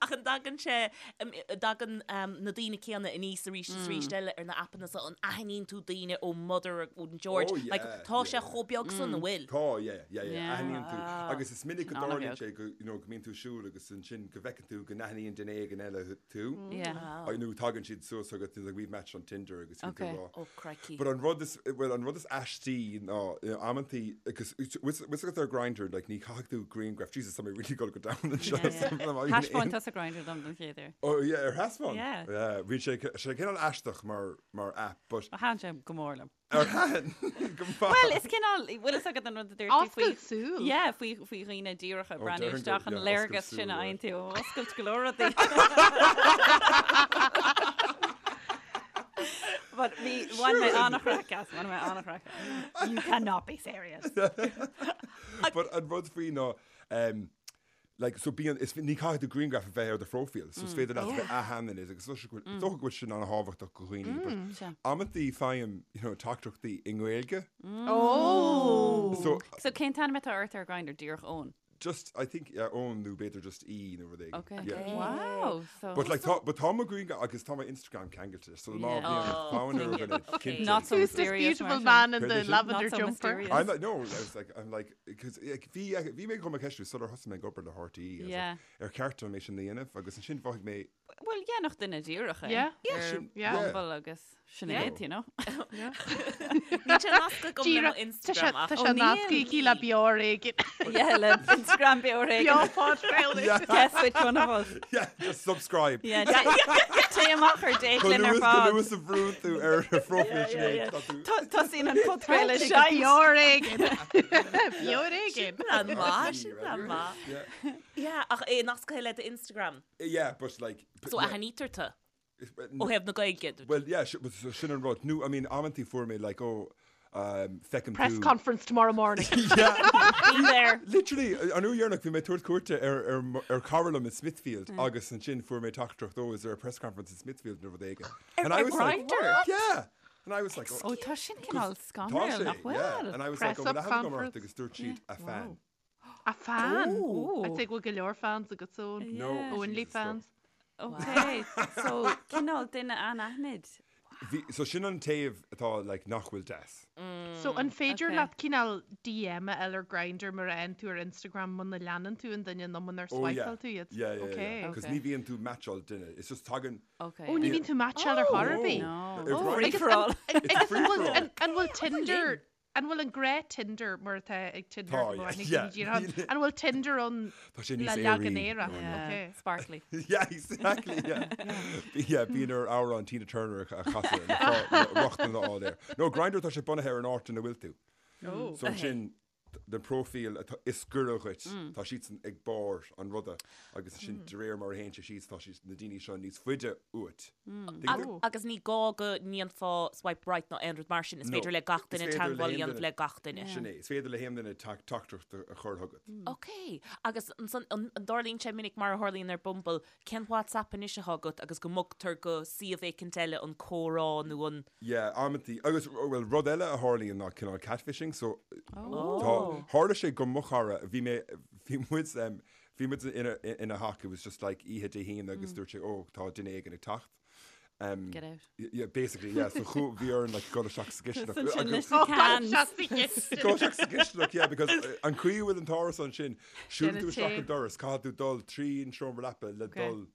Ach an dtagann sé, an dtagann na daoine céanna aníos arís is arís eile ar na aipeanna so an aithníonn tú daoine ó Mother ón George, Oh, yeah, like tá sé yeah. chomh beag san an bhfuil? Tá, yeah, yeah, yeah, Yeah. aithníonn tú. Agus is minic go An-bheag. dtarlaíonn sé go, you know, go mbíonn tú ag siúl agus ansin go bhfeiceann tú go n-aithníonn duine éigin eile tú. Yeah. Wow. Nó tagann siad suas agat, like we've matched on Tinder agus bíonn tú Okay. ag rá. Oh, crikey. But an rud is, well, an rud is aistí ná, you know, amantaí, agus bhfuil fhios agat ar Grindr, like, ní chaithfidh tú grianghraf, Jesus, tá mé really gonna go down anseo. Yeah, yeah. Thaispeáin tusa Grindr dom don chéad uair. Oh, yeah, ar thaispeáin? Yeah. Yeah, bhí sé, sé cineál aisteach mar, mar app, but Thaitin sé go mór liom. ar thaitin? Go maith. Well, is cineál, bhfuil fhios agat an rud a dúirt tú faoi... Oscailt súl. Yeah, faoi, faoi dhaoine díreacha Oh, breathnú déarfainn isteach go- an yeah, léargas oscailt sin a súl, fhaigheann tú ó oscailt go leor rudaí. But bhí bhain mé an-chraic as, bhain mé an-chraic as. You cannot be serious. But an rud faoi ná, um, like, so bíonn, is, ní caithfidh do grianghraf a bheith ar do phróifíl, so is féidir leat a bheith anaithnid agus is dócha go bhfuil sin an-thábhachtach do dhaoine, but Sea. amantaí faighim, you know, teachtaireachtaí i nGaeilge. Oh! So, So cén t-ainm atá ort ar Grindr, díreach Eoin? Just, I think, yeah, Eoin nó b'fhéidir just E nó rud éigin. Okay. Yeah. Wow. So But like, tá, but tá mo ghrianghraf agus tá mo Instagram ceangailte, so má Yeah. bhíonn Oh. fonn ar dhuine, Okay. cinnte. Not so Who's this mysterious, beautiful mar sin. man in Céard the é sin? lavender Not so jumper? mysterious. I'm like, no, I was like, I'm like, because like, bhí, bhí mé chun mo cheistiú sular thosaigh mé ag obair le RTÉ, I was like, Yeah. ar cheart dom é sin a dhéanamh, agus ansin mhothaigh mé, Well, yeah, nach duine díreach é. Yeah. Ar Sin- Yeah. Bumble agus sin Yeah. iad, you know. Níl sé nasctha agam le mo Díreach, tá sé Instagram ach tá sé níl. nasctha aici le beoir éigin. Yeah, le Instagram beoir éigin. Beo podchraoladh. Yeah. Guess which one of us. yeah, just subscribe. Yeah, té amach ar date Go linn ar luas, go fad. luas a bhrúnn tú ar a phróifíl Yeah, yeah, yeah. Sinéad, tá tú- Tá- Tosaíonn an podchraoladh Tá sé seit. beoir éigin. Beoir éigin. Plean maith, sin plean maith. Yeah. Yeah, ach é nasctha le do Instagram. Yeah, but like... So yeah, aithnítear tú it's- ó thaobh na Gaeilge. Well, yeah, but so sin an rud. No, I mean, amantaí fuair mé like, oh, um, feicim Press tú... conference tomorrow morning. Yeah, Be there. literally, an uair dheireanach bhí mé ag tabhairt cuairte ar, ar, ar cara liom in Smithfield agus ansin fuair mé teachtaireacht, oh, is there a press conference in Smithfield nó rud éigin. And I was like, Grindr? Yeah. And I was like, oh, Ó, tá sin cineál tá scanrúil, sé, nach yeah. bhfuil? And I was Press like, oh, up well, I haven't gone conference. ort agus dúirt siad a fan. A fan. Oh. I'd say go bhfuil go leor fans agat so. No. Yeah. Only Jesus, no. fans. Okay, so cineál duine anaithnid. Bhí, so sin an taobh atá like nach bhfuil deas. So an féidir okay. leat cineál DM a fháil ar Grindr mar a fhaigheann tú ar Instagram muna leanann tú an duine nó munar Oh, yeah. swipeáil tú iad? Yeah, yeah, yeah. Okay. Because Okay. ní bhíonn tú matcháil duine. It's just tagann... Okay. Ó, ní bhíonn tú matcháil ar chor ar bith. No. Ar Oh, Free agus for an- all. It's Agus free an for bhfuil all. an an bhfuil Tinder an bhfuil an gné Tinder mar atá ag Tinder Tá, go yeah, bhfuil yeah. díreach an bhfuil Tinder ann Tá sé le níos leagan aeraí. Éire? Oh, no. Yeah, Okay. Sparkly. Yeah, exactly, yeah. Yeah, bíonn ar amhrán Tina Turner a chasadh le fá- le rochtain a fháil air. No, Grindr tá sé bunaithe ar an áit ina bhfuil tú. Oh. So ansin den próifíl atá is gaire dhuit, tá siadsan ag barr an ruda agus ansin de réir mar a théann sé síos tá siad na daoine seo níos faide uait. Tuigeann tú? Agus ní gá go ndéanfá swipe right ná aon rud mar sin, is No. féidir le gach Is duine féidir le teagmháil a haon dhéanamh duine. le gach duine. Sin é, is féidir le haon duine teachtaireacht a chur chugat. Ok, agus ansan an dtarlaíonn sé minic mar a tharlaíonn ar Bumble, cén WhatsApp anois atá agat agus go mbogtar go suíomh éicint eile an comhrá nó an. Yeah, amantaí. Agus, well, rud eile a tharlaíonn ná cineál catfishing, so tá, tharla sé go mo chara, bhí mé, bhí muid, em, bhí muid ina, ina theach, it was just like oíche Dé hAoine agus dúirt sé, oh, tá duine éigin ag teacht. Um, Get out. Yeah, basically, yeah. So chu, bhí orainn like dul isteach sa gcistineach. Ansin Agus- leis na cans. Dul isteach sa gcistineach, yeah, because uh, an chaoi a bhfuil an t-árasán sin, siúlann tú Déanamh isteach tae. an doras, caithfidh tú dul trí an seomra leapa le Okay. dul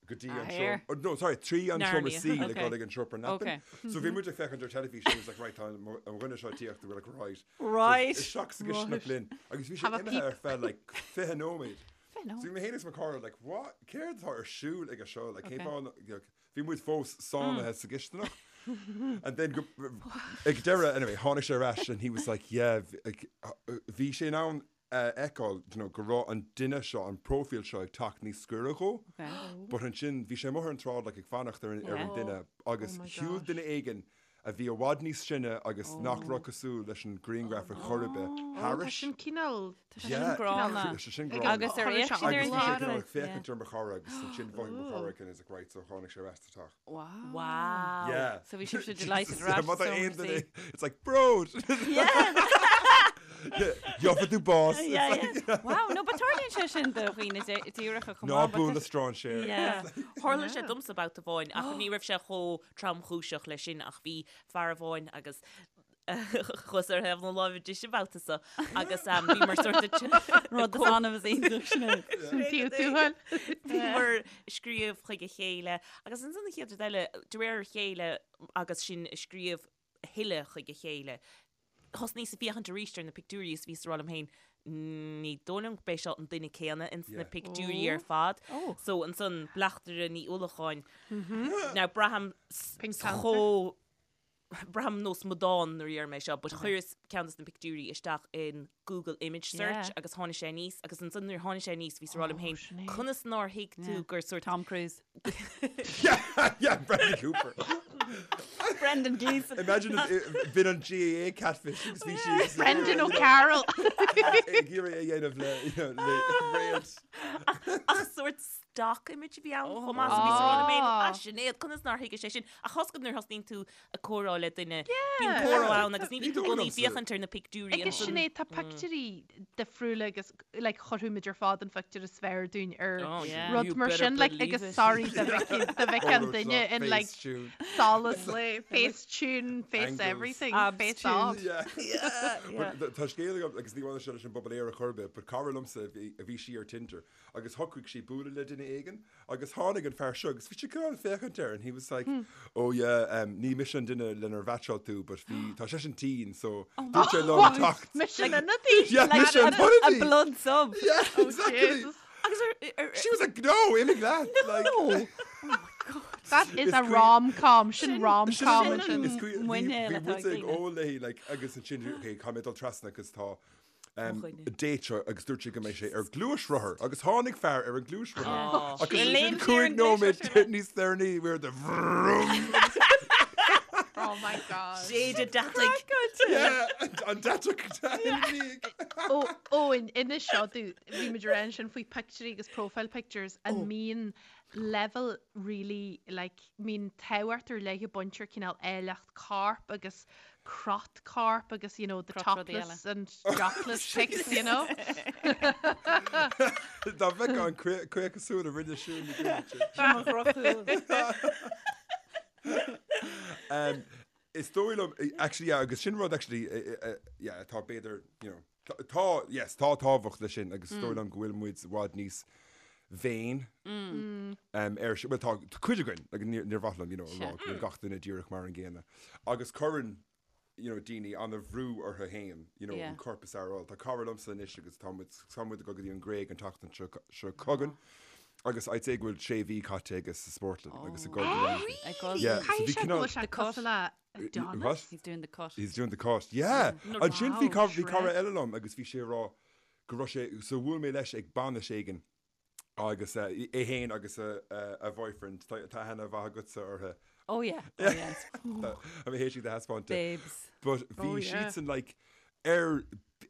go dtí Ah, an here. seomra, oh, no, sorry, trí an seomra Narnia. suí le Okay. dul ag an seomra leapa. Okay. So bhí muid ag féachaint ar teilifís, and it was like, right, tá an an dhuine seo ag tíocht, we're like, right. Right. So isteach sa gcistineach linn. Agus bhí sé Have a imithe peep. ar feadh like 20 nóiméad. nóiméad. So bhí mé féin agus mo chara like, what? Céard atá ar siúl aige seo? Like, cén Okay. fáth na- like, bhí muid fós sáinnithe sa gcistineach. And then go, ag deireadh, anyway, tháinig sé ar ais and he was like, yeah, like, bhí sé in ann a fheiceáil, you know, go raibh an duine seo, an próifíl seo ag teacht níos gaire dhó. Okay. But ansin, bhí sé amuigh ar an tsráid like, ag fanacht ar an, ar an Yeah. duine agus Oh my shiúil gosh. duine éigin a bhí i bhfad níos sine agus nach raibh cosúil leis an grianghraf ar chor ar bith Tá thairis. sin cineál Tá sin gránna. Tá sé sin Ag gránna. Agus ar Chuir fhéach sé siad ar Agus an bhí sé gclár. cineál ag Yeah. féachaint ar mo chara agus ansin mhothaigh mo chara and is like, right, so tháinig sé ar ais sa teach. Wow. Wow. Yeah. So bhí sibhse delighted Jesus, yeah, ar ais má tá sa aon seomra duine- suí. It's like, bród! Yeah. Gheobhaidh tú bás! It's Yeah, like, yeah. Wow, no, but tarlaíonn sé sin do dhaoine díreacha chomh Ná maith, but buail le tá- strainséir. Yeah. Tharla sé domsa babhta amháin ach ní raibh sé chomh tromchúiseach leis sin ach bhí fear amháin agus chuas ar thaobh na láimhe deise an babhta seo agus bhí mar sort of Rud is annamh is iontach sin. Taobh tuathail. Bhíomar ag scríobh chuig a chéile agus ansan an chéad rud eile, de réir a chéile agus sinn ag scríobh a thuilleadh chuig a chéile, thosnaíos ag féachaint arís ar na pictiúirí is bhíos ag rá liom féin, ní dóigh liom gurb é seo an duine céanna ins na pictiúirí ar fad. So ansan Bleachtaire Ní Uallacháin. Now braithim Pink Panther. chomh braithim nós amadán nuair a deirim é seo, but chuireas ceann des na pictiúirí isteach in Google Image Search Yeah. agus tháinig sé aníos agus ansan nuair a tháinig sé aníos bhíos ag rá liom féin, Sinéad. conas nár thuig tú gur sort Tom Cruise. Yeah, yeah, Bradley Cooper. Brendan Gleeson. Imagine bhí an GAA catfish agus bhí sí Brendan O'Carroll. ag iarraidh a dhéanamh le le réalt. Ach sort stock image a bhí ann chomh maith so bhí sí ag rá ah Sinéad conas nár thuig sé sin ach thosaigh nuair a thosnaíonn tú ag comhrá le duine bíonn comhrá ann agus ní bhíonn tú i gcónaí ag féachaint ar na pictiúirí Agus Sinéad tá pictiúirí difriúla agus like chuirfeadh muid ar fad an phictiúr is fearr dúinn ar Oh, yeah. rud You mar better sin like believe agus it. sorry do bheadh an duine in like solas le face tune, face Angles. everything, Abs face tune. off. Yeah. But Tá scéal agam agus ní bhaineann sé leis an bpobal aerach ar bith, but cara liomsa a bhí sí ar Tinder agus shocraigh sí bualadh le duine éigin Agus tháinig an fear seo agus bhí sé cineál ag féachaint air and he was like, oh yeah, um, ní mise an duine lenar mheaitseáil tú, but bhí, tá seisean tinn, so dúirt sé liom teacht. Mise an ionadaí? Yeah, mise an A ionadaí. blood sub. Yeah, exactly. Jesus. Agus ar, ar, She was like, no, imigh leat. Like, That is Is a cuí- rom-com, sin rom-com Sin an- ansin. is cuí- bhí- muinéal bhí atá muid ag ag daoine. ól léi, like, agus ansin, okay, caithfidh mé dul trasna agus tá Mo dhuine. date seo agus dúirt sé go mbeidh sé ar gluaisrothar agus tháinig fear ar an gluaisrothar agus Léim ansin sé ar 5 an nóiméad gluaisrothar. níos deireanaí we were the vroom. Oh my god. Séide deataigh. Yeah, an deatach ina Ó, ó, in inis seo domh, bhí muid ag rá ansin faoi pictiúirí agus profile pictures an mbíonn level really like mbíonn tábhacht ar leith ag baint ar cineál áilleacht coirp agus crot coirp agus you know the Crot rudaí topless and jockless pics you know. Dá bheith an caochasúil a rinne siúl na gcúilte. Sin mo dhrochshúil. Um, Is dóigh liom, actually, yeah, agus sin rud actually, yeah, atá b'fhéidir, you know, tá, yes, tá tábhacht leis sin agus is dóigh liom go bhfuil muid i bhfad níos vain ar sin, bhuel tá cuid againn, like, níor níor mhaith liom, you know, a rá go bhfuil gach duine díreach mar an gcéanna. Agus cuireann, you know, daoine an-bhrú orthu féin, you know, an corp is fearr a fháil. Tá cara liomsa anois agus tá muid, tá muid ag dul go dtí an Ghréig an tseachtain seo, seo chugainn agus I'd say go bhfuil sé mhí caite aige sa spórtlann agus ag dul go Really? Ag dul Yeah, so Caithfidh bhí sé go cineál- bhfuil sé The cut. cosúil le Adonis. What? He's doing the cut. He's doing the cut, yeah. Ansin bhí Wow, cara, bhí cara shred. eile liom agus bhí sé ag rá go raibh sé, so bhuail mé leis ag bainis éigin agus eh, é féin agus a, a, a boyfriend, tá tá aithne mhaith agatsa orthu. Oh yeah, oh yeah. Tá mé théis iad a thaispeáint. Babes. But bhí Oh, yeah. siadsan like ar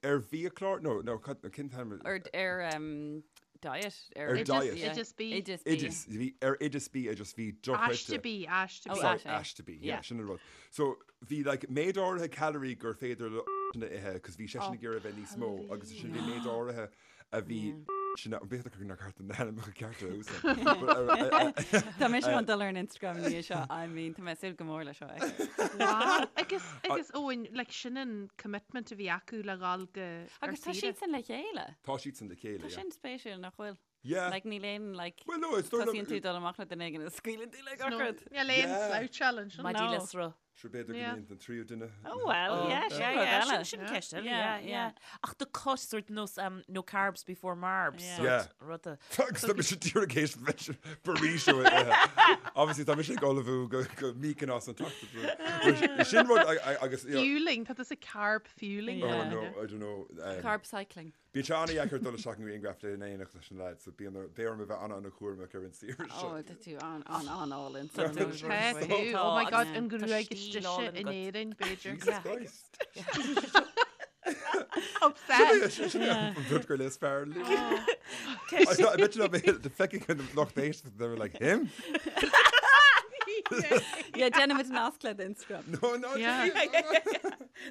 ar bhiachlár, no, no, cad- cén t-ainm? Ar, ar um, diet. Ar Ar diet. Yeah. Oideas B. Oideas B. Oideas, bhí ar oideas bia just bhí dochreidte. Aiste B, aiste B. Oh, Sorry, aiste, yeah. aiste B, yeah, Yeah. sin an rud. So bhí like méid áirithe calorie gur féidir le sin a ithe, cos bhí seisean ag iarraidh a bheith níos mó agus sin bhí méid áirithe a bhí sin a, b'fhéidir gur nár ceart na hainmneacha cearta a úsáid. But, uh, uh, Tá mise chun dul ar an Instagram ina dhiaidh seo, I mean, tá mé ag súil go mór le seo. a fheiceáil. Wow. Agus, agus Eoin, like, sin an commitment a bhí acu le dhul go ar Agus tá saoire. siadsan le chéile. Tá siadsan le chéile, Tá yeah. sin spéisiúil nach bhfuil. Yeah. Like, níl aon, like, Well, no, it's dóigh liom- tosaíonn tú dul amach le duine éigin is scaoileann tú le gach No, rud. Níl aon Yeah. sloucháil ansin. Maidí No. le sruth. Sure, b'fhéidir go Yeah. mbíonn an tríú duine. Oh well, yeah, sin Yeah, rud yeah, eile. sin, sin ceist eile, Yeah, yeah, yeah. yeah. Ach the cut sort nós um, no carbs before marbs Yeah. sort Yeah. ruda. Agus tá mise díreach théis burrito a ithe. Obviously tá mise ag ullmhú go go Mykonos an tseachtain seo. Sin rud a- a- agus you know, Fueling, tá tusa carb fueling. Oh Yeah. no, I don't know. Um, Carb cycling. Bíonn sé an-dheacair dul isteach i ngrianghraf in éineacht leis an leaid, so bíonn ar, beidh orm a bheith an-an-chúramach ar an saoire seo. Oh, tá tú an an an álainn. Tá tú, oh my god, an gruaig Tá is stíl deise álainn in agat. Éirinn, b'fhéidir. Jesus Christ. Obsessed. Sin é an rud gur is fearr liom. I bet you not the fecking kind of lucht éisteachta, they were like, him? Yeah, déanaimid nasc le d'Instagram. No, no, Yeah.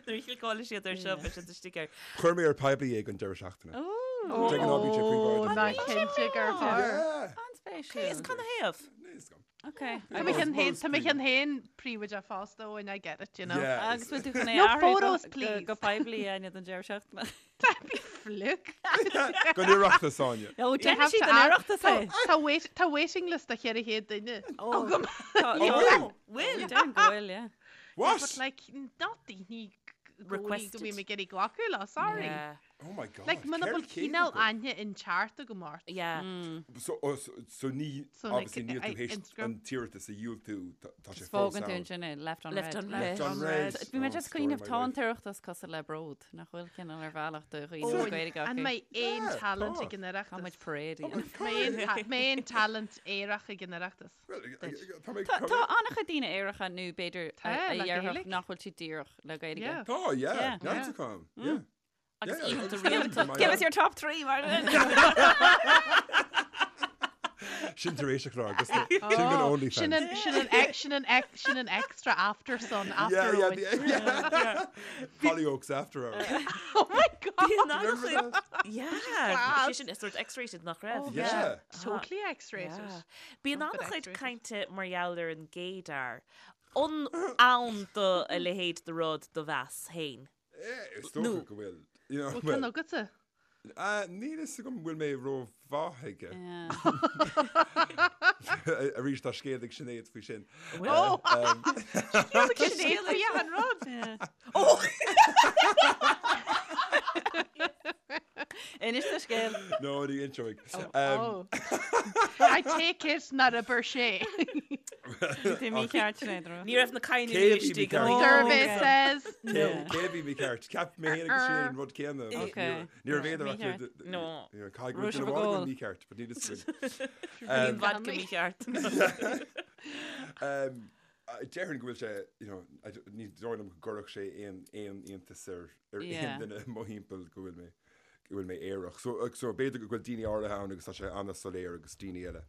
Nuair a chliceálann siad ar seo beidh siad istigh air. Chuir mé ar poiblí é don deireadh seachtaine. Oh, Taking all BJ Oh, príobháideach. ná cinnte gur chuir. Yeah. an-spéisiúil. Is cad ina thaobh? Níl a fhios agam. Okay. Tá mé chun Most tá mé príomh. chun féin príobháideach fosta ó and I get it, you know. Yeah. Agus bhfuil tú chun é No a athrú photos, go- please. Go poiblí a don deireadh seachtaine. That'd be fluke. Don Oireachtas, Áine. Ó, You déanfaidh have siad to an add- Oireachtas é. Tá wait, tá waiting list de 400 duine. Oh, Agam. Tá- Oh, bhfuil? Bhfuil. Déarfainn go bhfuil, yeah. What? But like, not daoine go Requested. bhí mé ag iarraidh glacadh le, sorry. Yeah. Oh my God. Like, muna bhfuil cineál aithne inteacht agam ort. Yeah. So, oh, so, so ní, So, like, obviously níl tú I- théis Instagram. an t-iarratas a dhiúltú, tá tá sé Just fós fágann tú ann. ansin é, left on Left red. on red. Left on red. Bhí mé Oh, just story cuimhneamh of my tá an life. tOireachtas cosúil le bród, nach bhfuil cineál ar bhealach do dhaoine Ó, le Gaeilge An acu. mbeidh aon Yeah, talent tá. ag an Tá muid Oireachtas? parade a dhéanamh. Mbeidh aon ta- mbeidh aon talent aerach ag an Oireachtas? Well, Duit. tá mé Tá tá an-chuid daoine aeracha nó b'fhéidir Tá, a le dhéarfadh Gaeilge. nach bhfuil siad díreach le Gaeilge. Yeah. Tá, yeah, Yeah. neart acu, yeah. Agus Yeah, oícheanta agus rialta. my Give us your top 3, Martin! Sin tar éis an chláir, agus sin go OnlyFans. Sin an, sin an, ex- sin an, ex- sin an extra after sun, after Yeah, yeah, Owen. the, yeah. Hollyoaks after hours. Oh my God! Bíonn Remember an-chuid- that? Yeah. Class. Sé sin is sort X-rated nach raibh. Oh, Yeah. Totally X-rated. Yeah. Bíonn Not an-chuid X-rated. cainte mar gheall ar an gaydar. An ann do a leithéid de rud do mheas féin. Eh, is dócha go bhfuil. You know, Bhfuil well, ceann agatsa? ah, níl fhios agam bhfuil mé rómhaith aige. Yeah. Arís tá scéal ag Sinéad faoi sin. Oh! Um, Sinéad faoi an rud! Inis do scéal. No, ní inseoidh. Um, Oh. I take it nár abair sé. Bhí mícheart Sinéad rud. Ní raibh na cainní Cé bhí istigh mícheart? an oíche. Survey okay. says no. Cé cé bhí mícheart? Ceap mé féin agus Sinéad an rud céanna. but Okay. Ní raibh aon Mícheart. acu. No. Caithfidh go Raibh bhfuil sibh duine ag amháin ól. mícheart, but níl fhios againn. Bhí an vodka mícheart. Um, Déarfainn go bhfuil sé, you know, I don't- ní dóigh liom go gcuirfeadh sé aon aon iontas ar ar Yeah. aon duine i mo thimpeall go bhfuil mé go bhfuil mé aerach. So, uh, so b'fhéidir go bhfuil daoine áirithe ann agus tá sé an-soiléir agus daoine eile.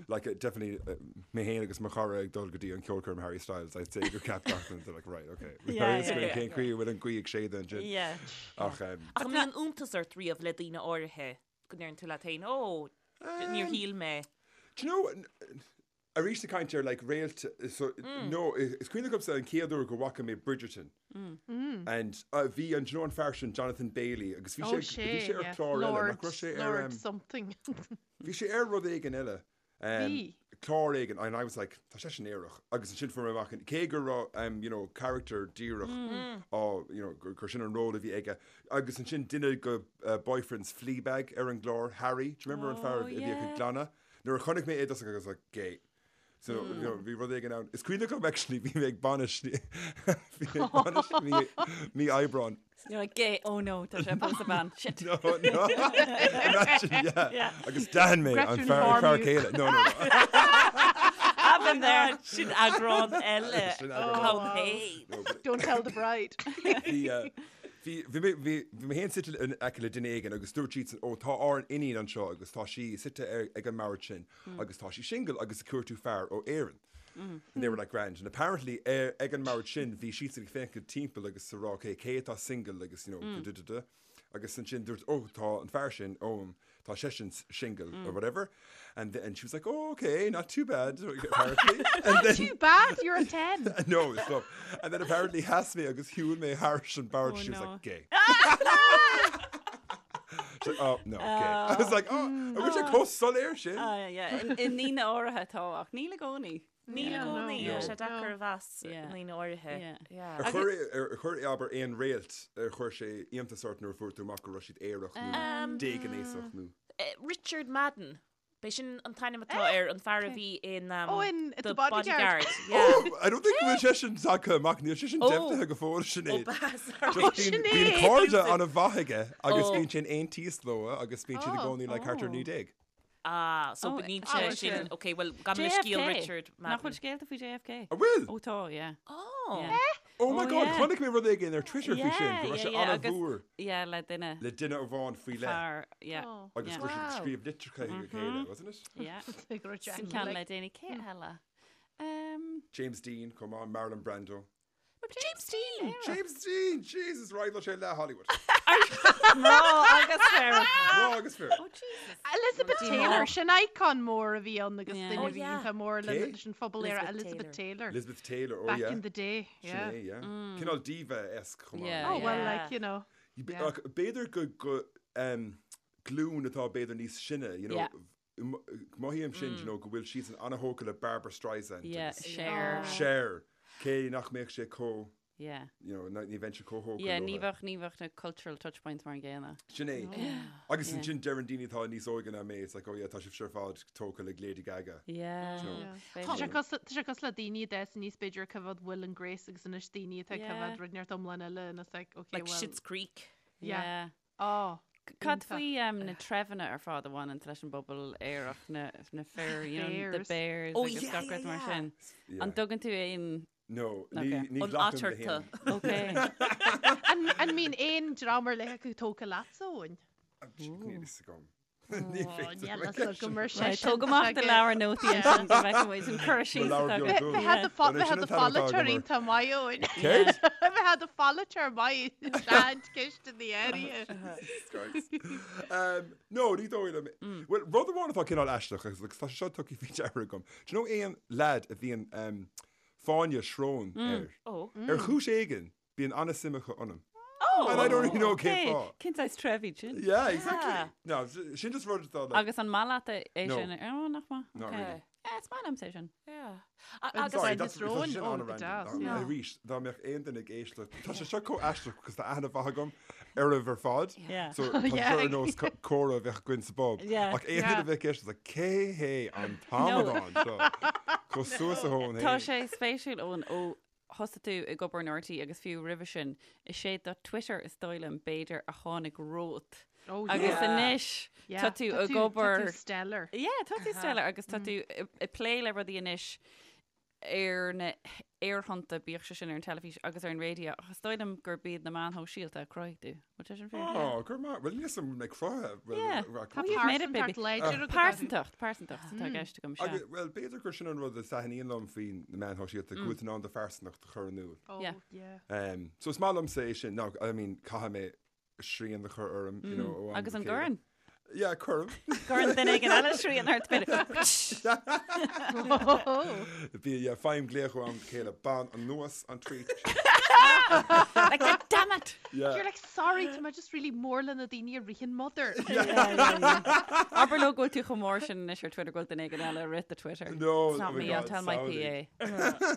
Like, uh, definitely, uh, mé féin agus mo chara ag dul go dtí an ceolchoirm Harry Styles, I'd say gur cheap gach duine, they're like, right, okay. Yeah, yeah, yeah. Cén chaoi a bhfuil an ghaoth ag séideadh ansin. Yeah. Ach, um, Ach an mbíonn iontas ort riamh le daoine áirithe go ndeireann tú leat féin, ó, níor shíl mé. Do you know, n- arís ag caint ar like réalt, so, no, is cuimhin liomsa an chéad uair go bhfaca mé Bridgerton. And uh, bhí an, do you know an fear sin Jonathan Bailey agus bhí Oh, sé bhí sé, sé ar yeah. chlár eile, nach Lord, raibh sé ar Lord um, something. bhí sé ar rud éigin eile. Um, Bhí. Clár éigin, and I was like, tá sé sin aerach. Agus ansin fuair mé amach, cé go raibh, um, you know, character díreach á, you know, gur gur sin an ról a bhí aige. Agus ansin duine go uh, boyfriends Fleabag ar an gclár, Harry, do you remember an fear Oh, a bhíodh ag yeah. glanadh? Nuair a chonaic mé é I was like, gay. So, you know, bhí rud éigin ann. Is cuimhin liom actually bhí mé ag bainis bhí mé ag bainis mí mí Aibreán. You're like, gay, oh no, tá sé ag pósadh bean. Shit. No, no. Imagine, yeah. Yeah. Agus d'aithin mé an Gretchen fear an fear Farmute. céile. No, no, no. I've been there. Sin eagrán eile. Sin eagrán Come wow. hey. No, but Don't tell the bride. Bhí, uh, bhí, bhí mé, bhí, bhí mé féin suite in aice le duine éigin agus dúirt siadsan, ó, tá ár n-iníon anseo agus tá sí suite ar, ag an mbord sin agus tá sí single agus ag cuartú fear ó Éirinn. And they were like grand. And apparently ar, ag an mbord sin bhí siadsan ag féachaint timpeall agus ag rá, okay, cé atá single agus, you know, mm. da, da, da. Agus ansin dúirt, oh, tá an fear sin, ó, tá seisean single or whatever. And, th- and she was like, oh, okay, not too bad, apparently. And then, Too bad, you're a 10. no, stop. And then apparently sheas mé agus shiúil mé thairis an bord. Oh, she was no. like, gay. She's like, oh, no, gay. I was like, oh, I wish I chomh soiléir sin. Ah, yeah, yeah. I ndaoine áirithe tá ach níl i gcónaí. Níl i Yeah. gcónaí, No. tá sé deacair a mheas Yeah. ndaoine áirithe. Yeah. Yeah. Ar chuir ar chuir abair aon réalt ar chuir sé iontas ort nuair a fuair tú amach go raibh siad aerach nó déghnéasach nó. Eh, Richard Madden. B'é sin an t-ainm atá air an fear a bhí in um, Oh, in The The Bodyguard. Bodyguard. Yeah. Oh, I don't think go bhfuil sé sin tagtha amach níl sé sin Oh. deimhnithe go fóill Sinéad. Oh, b'ea, sorry. Just bíonn Sinéad. bíonn cairde an-mhaith aige agus Oh. bíonn sé in aontíos leo agus bíonn siad i Oh. gcónaí le thart ar 19. Ah, so Oh, níl oh, sé okay. sin, okay, well, gan le scéal JFK. Richard Nach bhfuil Madden. scéalta faoi JFK? An bhfuil? Ó tá, yeah. Oh. Yeah. Oh my Oh, God, yeah. chonaic mé rud éigin ar Twitter faoi sin, go raibh sé yeah, yeah, agus- an-mhór Yeah, le duine le duine amháin faoi leith fear, yeah. Oh. agus Yeah. go raibh siad Wow. ag scríobh litreacha chuig a chéile, wasn't it? Yeah. Like Richard Sin ceann like- le déanaí cé eile. Um, James Dean, come on, Marlon Brando. James Dean! James Dean, Jesus, right, sé le Hollywood. Mná agus fir. Mná agus fir. Oh Jesus. Elizabeth Taylor, sin icon mór a bhí ann agus Yeah. duine Oh, a bhí yeah. iontach mór le Cé? leis an phobal aerach Elizabeth Elizabeth Taylor. Elizabeth Taylor, oh Back yeah. in the day, yeah. Sin é, yeah. Cineál diva-esque chomh maith. Yeah, Oh, well, Yeah. like, you know. You Yeah. ach, B'fhéidir go go um, glúin atá b'fhéidir níos sine, you know, Yeah. mothaím sin, you know, go bhfuil siad an-thógtha le Barbra Streisand Yeah, agus Cher. Cher, cé nach mbeadh sé chomh. Yeah. You know, ní bheinnse chomh thógtha Yeah, ní leotha. bheadh, ní bheadh na cultural touchpoints mar an gcéanna. Sin é. Agus Yeah. ansin deireann daoine atá níos óige ná mé, it's like, oh yeah, tá sibhse ar fad tógtha le Lady Gaga. Yeah. You know. Tá sé cosúil tá sé cosúil le daoine a d'fhás aníos b'fhéidir ag coimhéad Will and Grace agus anois daoine atá ag Yeah. coimhéad rud inteacht iomlán eile and it's like, okay, Like well, Schitt's Creek. yeah. Yeah. Oh, Cad iontach. faoi um, na treibheanna ar fad a bhaineann leis an bpobal aerach, na, na fir, you know, the Bears. bears Oh, agus yeah, gach yeah, rud mar yeah. sin. Yeah. An dtugann tú aon No, ní, Okay. ní An ghlacaim le eatarthu. haon. Okay. An, an mbíonn aon dream ar leith acu tógtha leatsa, Eoin? Níl fhios agam. Ní féidir Níl liom fhios agam ar Right, seisean. Tóg amach do leabhar nótaí ansin go bhfeicfidh muid an cur síos leabhar atá beag agat. dubh. Bheadh do Well, bheadh sin do an t-ainm atá pholaiteoir agam air. iontach maith, Eoin. Céard? Bheadh do pholaiteoir maith sean ceist in the area. Christ. Um, no, ní dóigh liom. Well, rud amháin atá cineál aisteach agus agus tá sé seo tugtha faoi deara agam. Do you know aon lad a bhíonn um, fáinne srón air? Oh. Ar chúis éigin, bíonn an-suim acu ionam. Oh! And I don't really know cén Okay, fáth. Cén saghas treibh iad sin? Yeah, exactly. Yeah. No, sin just rud atá like, Agus an maith leat é No. sin? Oh, nach maith. Not Okay. really. Yeah, is maith liomsa é sin. Yeah. Agus Agus Sorry, Fáinne that's srón? tá sin Oh, an-random. go deas, Dá- yeah. Arís, dá mbeadh aon duine ag éisteacht. Tá sé seo chomh aisteach because tá aithne mhaith agam oraibh ar fad. Yeah. So tá Yeah. seo ar nós comhrá a bheadh againn sa bpub. Yeah. Ach aon duine a bheadh ag éisteacht, like, cé hé an t-amadán seo? Chomh suas a thóin Tá féin. sé spéisiúil Eoin ó thosaigh tú ag obair in RTÉ agus fiú roimhe sin, is é do Twitter is dóigh liom b'fhéidir a tháinig romhat. Oh, Agus yeah. anois Yeah. tá tú ag Tá obair tú stellar. Yeah, tá tú stellar agus tá tú ag plé le rudaí anois ar na aerthonnta, bíodh sé sin ar an teilifís agus ar an raidió, ach is dóigh liom gurb iad na meáin shóisialta a chruthaigh tú. Bhfuil sé sin fíor? Oh, go raibh maith. Bhuel, níl 'fhios agam mé cruthaithe. Well, Yeah. rac- Tá You've made it, baby. pearsantacht láidir agat. Pearsantacht, pearsantacht atá i gceist agam, sea. Agus, well, b'fhéidir gur sin an rud a thaitníonn liom faoi na meáin shóisialta, go bhfuil tú in ann do phearsantacht a chur in iúl. Oh, Yeah. yeah. Um, so is maith liomsa é sin. Now, I mean, caithfidh mé srian a chur orm, you know, ó am Agus go an chéile. gcuireann? Yeah, cuirim. Cuireann duine éigin eile srian ort, b'fhéidir. Bhí, yeah, faighim glaoch ó am go chéile, bain anuas an tweet. Like, God damn it! Yeah. You're like, sorry, tá mé just really mór le na daoine a ritheann mother. Abair leo go bhfuil tú chomh mór sin anois ar Twitter go bhfuil duine éigin eile ag rith do Twitter. No, It's not oh my me, I'll God, tell my samhlaigh. PA.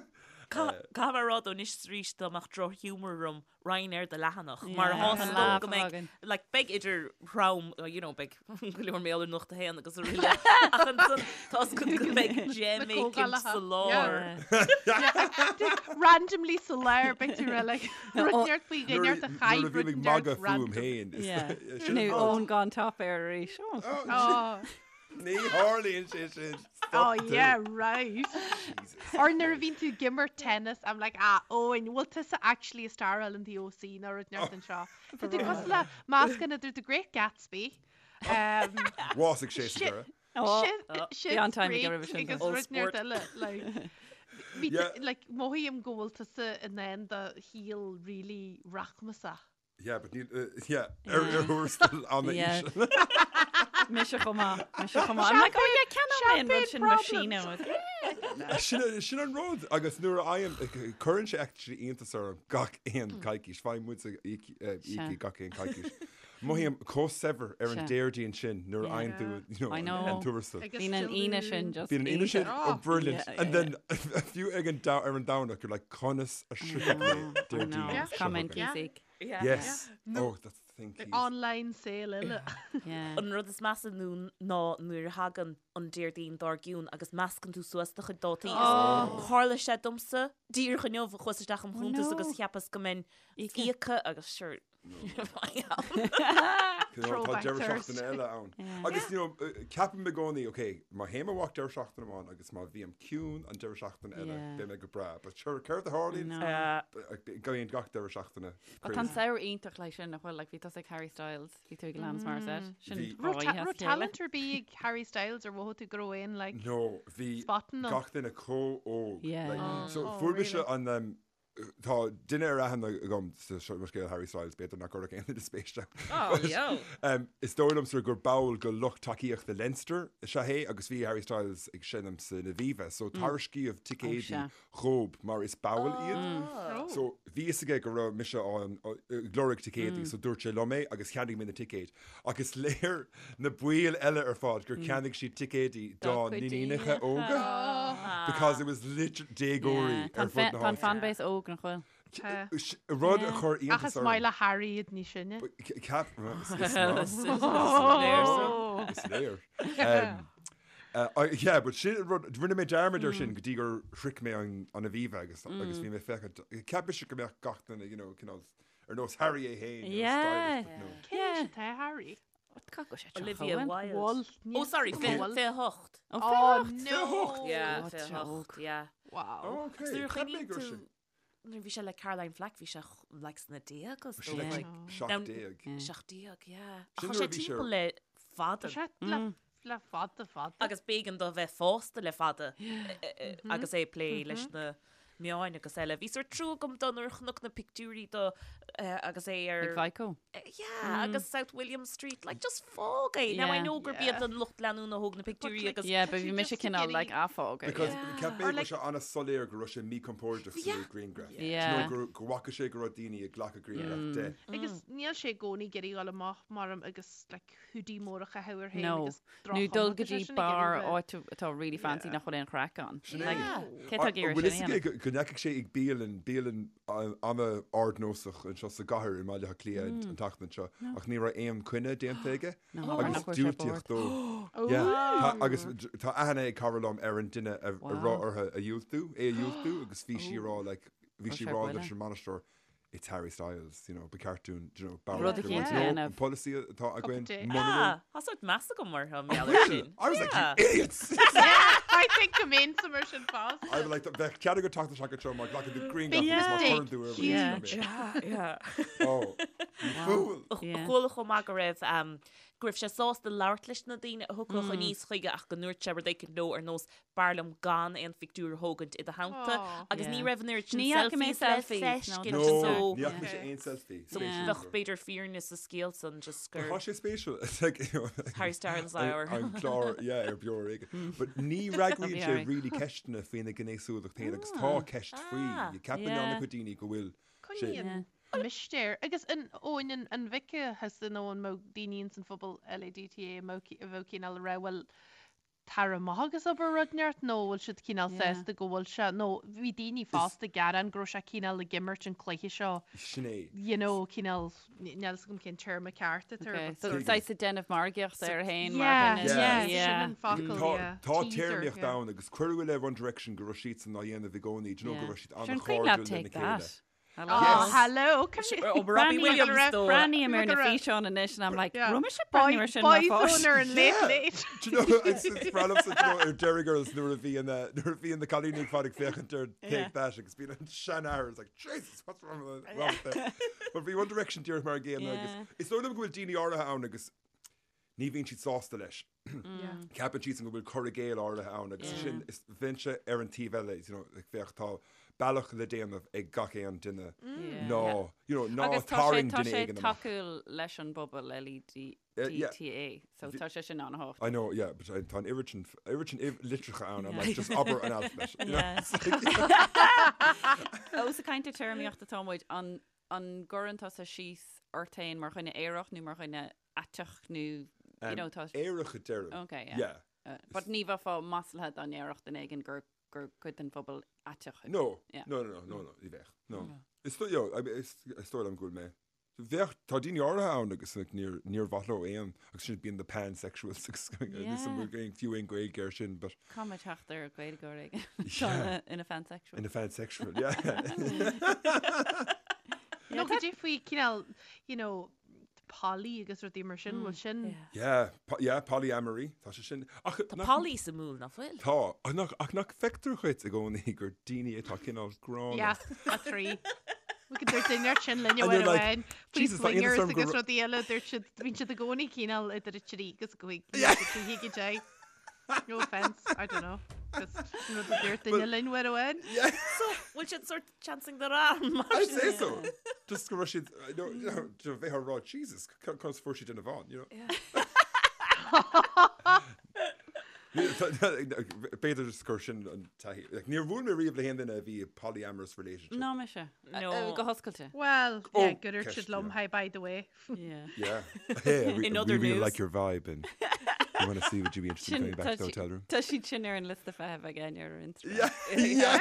Caithfidh mé a rá though anois is arís dá mbeadh drochghiúmar orm raghainn ar do leathanach mar Yeah, tá an 's lámh agam go mbeidh againn. like beidh idir throm you know beidh go leor mé ar Nuacht a hAon agus araile ach ansan tá 's agat go mbeidh gem Na éicint comhdhálacha. sa lár. Yeah. Randomly sa lár beidh tú rá like rud inteacht faoi Nuair dhuine a nuair chaith a bhím rud ag inteacht magadh fúm random. féin. is- Yeah. Sin Nó an rud. Eoin gone top air arís. Oh. Oh. Ní tharlaíonn sé sin. Oh Stop tú. yeah, right. Jesus. Or nuair a bhíonn tú ag imirt tennis, I'm like, ah, Eoin, bhfuil tusa actually ag staráil in the OC nó rud inteacht anseo. Tá tú cosúil le meascán idir The Great Gatsby, um, Bhásaigh sé sa Shit. deireadh. Oh, Shit, bhí an-time aige Creek roimhe sin, agus though. rud Old inteacht sport. eile, like, bhí Yeah. like, mothaím go bhfuil tusa in ann do shaol really rachmasach. Yeah, but níl, uh, yeah, ar ar thuarastal an Yeah. íseal. Mise chomh maith, mise chomh maith. I'm like, oh yeah, ceannóidh mé an rud sin Champagne machine. Sin sin an rud agus nuair a fhaighim cuireann sé actually iontas orm gach aon coicís, faighim muid íocaí gach aon coicís. Mothaím chomh saibhir ar an Sea. Déardaoin sin nuair a fhaigheann tú you know, I an know. an tuarastal. Agus Bíonn an Aoine sin just Bíonn an Aoine sin Oh, oh, brilliant. Yeah, And yeah, then fiú ag an ar an Domhnach you're like conas a shroichfidh mé I Déardaoin know. Yeah. seo Come in, chugainn. Keesig. Yeah. Yes. Oh, that's the thing, Keys. Online sale eile. Yeah. An rud is measa nó ná nuair a thagann an Déardaoin dár gcionn agus meascann tú suas do chuid dátaí. Oh. Tharla sé domsa díreach inniu chuas isteach im chuntas no. agus cheapas go mbeinn Íoctha. íoctha agus sure You know, Tá Throwback deireadh Thursday. seachtaine eile ann. Agus you know, uh, ceapaim i gcónaí, ok, má théim amach deireadh seachtaine amháin agus má bhím ciúin an deireadh seachtaine eile, Yeah. beidh mé go breá. But sure, céard a tharlaíonn? No. Bíonn gach deireadh seachtaine. But tá an crazy. samhradh iontach leis sin nach bhfuil, like, bhí tusa ag Harry Styles, bhí tú ag Alanis Morissette. Sin Bhí- dhá oíche as Raibh a chéile. talent ar bith ag Harry Styles ar mhothaigh tú go raibh aon like No, bhí spotting ann? gach duine chomh óg. Yeah. Like, Oh. so Oh, fuair mise really? an um, Tá duine ar aithne agam sa seo mo scéal Harry Styles, b'fhéidir nach gcuirfeadh aon duine spéis ann. Oh, yo. Um, is dóigh liomsa gur ball de lucht tacaíochta Leinster is ea é agus bhí Harry Styles ag seinm san Aviva, so tairiscíodh ticéidí sea. dhób mar is ball iad. Oh. So bhí fhios aige go raibh mise ann ag lorg ticéidí, so dúirt sé liom é agus cheannaigh mé na ticéid. Ach is léir na baill eile ar fad gur cheannaigh siad ticéidí dá Dá gcuid n-iníonacha iníonacha. óga. Because it was literally déagóirí Yeah. Tá ar fud na an háite. fanbase óg nach bhfuil. Tá. Rud a chuir Ach iontas is orm. maith le Harry iad níos sine. Ceap, is maith. Is léir. Yeah, but sin rud, rinne mé dearmad ar sin go dtí gur shroich mé an Aviva agus agus bhí mé féachaint, cheap mise go mbeadh gach duine, you know, cineál ar nós Harry é féin, you know, stylish, but no. Cén aois atá Harry? Olivia Wilde. Bhfuil. Oh, sorry, 28. Oh, no! Yeah, God, 28, yeah. Wow. Oh, okay. Nuair a Cheap mé chuimhníonn gur tú sin. nuair a bhí sé le Caroline Flack, bhí sé like sna déaga, Bhí sé like Now- 17. 17, yeah. Ach Sin tá nuair sé a bhí sé ar- timpeall le fada. Tá sé le le fada fada. Agus b'éigean dó bheith fásta le fada agus é ag plé leis na meáin agus eile. Bhí sórt trua agam dó nuair a chonac na pictiúirí dó agus é ar... Ag Vico. Yeah, agus South William Street, like just fág é. Now I know gurb iad an lucht leanúna a thóg na pictiúirí agus... Yeah, but bhí mise cineál like ah fág é. Because cheap mé go raibh sé an-soiléir go raibh sé míchompordach sa ghrianghraf. Yeah. Do you know, go bhfaca sé go raibh daoine ag glacadh grianghraf de. Agus níl sé i gcónaí ag iarraidh dul amach maram agus like hoodie mór a chaitheamh air féin No. agus Nó dul go droch-chuma, tá sé dtí sin ag bar iarraidh áit atá really fancy nach bhfuil aon chraic ann. Sin é. Like, cé tá ag iarraidh Bhfuil sin a fhios dhéanamh? aige go ndeachaigh sé ag bialann, bialann an-ardnósach anseo sa gcathair i mBaile Átha Cliath an tseachtain seo ach ní raibh aon coinne déanta aige No, agus nach bhfuil sé diúltaíodh bord. dó. Yeah. Tá, agus tá aithne ag cara liom ar an duine a Wow. raibh orthu a dhiúltú, é a dhiúltú agus bhí sí ag rá like, bhí Raibh sí sé ag rá buile. leis an mbainisteoir It's Harry Styles, you know, ba cheart dúinn, you know, Rud barúil eicínt a no, dhéanamh. an polasaí atá againn, tea. muna bhfuil. Ah, tá sórt meas agam orthu, mar gheall air sin. I was like, Yeah. you idiots! I think go mbeinnse mar sin fosta. I was like, bheadh cead agat teacht isteach anseo má ghlacann tú grianghraf Big agus má mistake. chuireann tú ar Huge. Yeah, yeah. Oh, you fool! Yeah. Chuala chomh maith go raibh um, go raibh sé sásta labhairt leis na daoine a thiocfadh aníos chuige ach go ndúirt sé rud éicint leo ar nós B'fhearr liom gan aon phictiúr a thógaint i do theannta agus ní raibh an oiread sin Ní fhaca mé selfies le selfies, no. feiscint No, so ní fhaca mise aon selfie. so Spéisiúil. bheadh b'fhéidir fírinne sa scéal san just gur Tá sé spéisiúil. It's like, you know, Harry Styles hour. An clár, yeah, ar Beo Ar Éigean. But ní fhreagraíonn sé Harry. really ceisteanna faoina ghnéasúlacht féin agus tá ceist faoi. Ah, Ceapann yeah. an-chuid daoine go bhfuil sé. Coinníonn mistéir. Agus an Eoin an an bhfeicfeá thusa nó an mbeadh daoine ins an phobal LADTA a mbeadh cineál ag rá bhuel tar amach agus abair rud inteacht nó bhfuil siad cineál sásta go bhfuil sé nó bhí daoine fosta ag gearán go raibh sé cineál ag imirt an cluiche seo Sin é. you know cineál níl fhios agam cén téarma ceart atá air Okay, but so sort of- saghas ag déanamh margaíochta air féin mar Yeah, dhuine. yeah, Yeah. sin an focal, Tá yeah. tá Teaser, téarmaíocht yeah. ann agus cuireadh i leith One Direction go raibh siadsan á dhéanamh i gcónaí, do you know, go raibh siad Sure, an cuimhin leat an-chairdiúil lena Take chéile. That? I Oh, like Yes. hello, come here. Oh, Robbie Williams dó. Breathnaím ar na Look at her. físeáin anois and I'm like, Yeah. raibh mise ag breathnú ar sin mar Boyzone pháiste. ar an late Yeah. late. Do you know, it's it's breá liomsa, do you know, ar Derry Girls nuair a bhí an, uh, nuair a bhí na cailíní ag fad ag féachaint ar Take That agus bíonn an seanathair is like, Jesus, what's wrong with wrong with them? But bhí One Direction díreach mar an gcéanna agus Yeah. is dóigh liom go bhfuil daoine áirithe ann agus ní bhíonn siad sásta leis. Ceapann siadsan go bhfuil cur i gcéill áirithe ann agus sin is bheinnse ar an taobh eile, you know, like bheadh tá bealach le déanamh ag gach aon duine ná, you know, ná Agus tá sé tarraing tá duine sé éigin amach. tacúil leis an bpobal LADTA, Eh, yeah. so tá sé sin an-tábhachtach. I know, yeah, but tá an oiread sin, oiread sin litreacha ann, I'm like, just abair an alphabet. You know? Yeah. It's like- Ós ag caint ar téarmaíocht atá muid, an an gcuireann tusa síos ort féin mar dhuine aerach nó mar dhuine aiteach nó, you know, tá Aerach a deirim. Okay, yeah. Yeah. Uh, but ní bheifeá maslaithe dá ndéarfadh duine éigin gur gur cuid den phobal aiteach thú. No, Yeah. no, no, no, no, no, ní bheadh, no. Is dóigh, yo, I mean, is is dóigh liom go bhfuil mé. Bheadh, tá daoine áirithe ann agus like, níor, níor mhaith leo aon, agus sin bíonn the pansexuals agus Yeah. níl aon fiú aon Gaeilge air sin, but Caithfidh mé teacht ar Gaeilgeoir éigin atá Yeah. ina pansexual. ina pansexual, yeah. Nó go dtí faoi cineál, you know, poly agus rudaí mar sin, bhfuil sin Yeah, po yeah, polyamory, tá sé sin. Ach, Tá nach- poly sa múl nach bhfuil? Tá, ach nach, ach nach feictear dhuit i gcónaí gur daoine atá cineál gránna. Yeah, a thrí. We could dúirt duine sin linne And uair you're like, amháin, faoi "Jesus, tá iontas swingers orm go agus ra- rudaí eile, dúirt siad, bíonn siad i gcónaí cineál idir a trí agus a cúig, Yeah. agus a cúig a deich. No offence, I don't know. Just rud a dúirt duine linn uair amháin. Yeah, So, bhfuil siad sort chancing their arm mar I'd sin? say so. Just go raibh siad, no, you know, do bheith á rá, Jesus, conas fuair siad duine amháin, you know. B'fhéidir just gur sin an taithí. Like, níor bhuail mé riamh le haon duine a bhí i polyamorous relationship. Ná mise. No. Go hoscailte. Well, Oh, yeah, gur dúirt siad ceist, liom, yeah. hi, by the way. Yeah. Yeah. Hey, I, re In I other really news. like your vibe and You want to see would you be interested in coming back to the hotel room? Tá siad sin ar an liosta feithimh ag Áine ar Instagram. Yeah,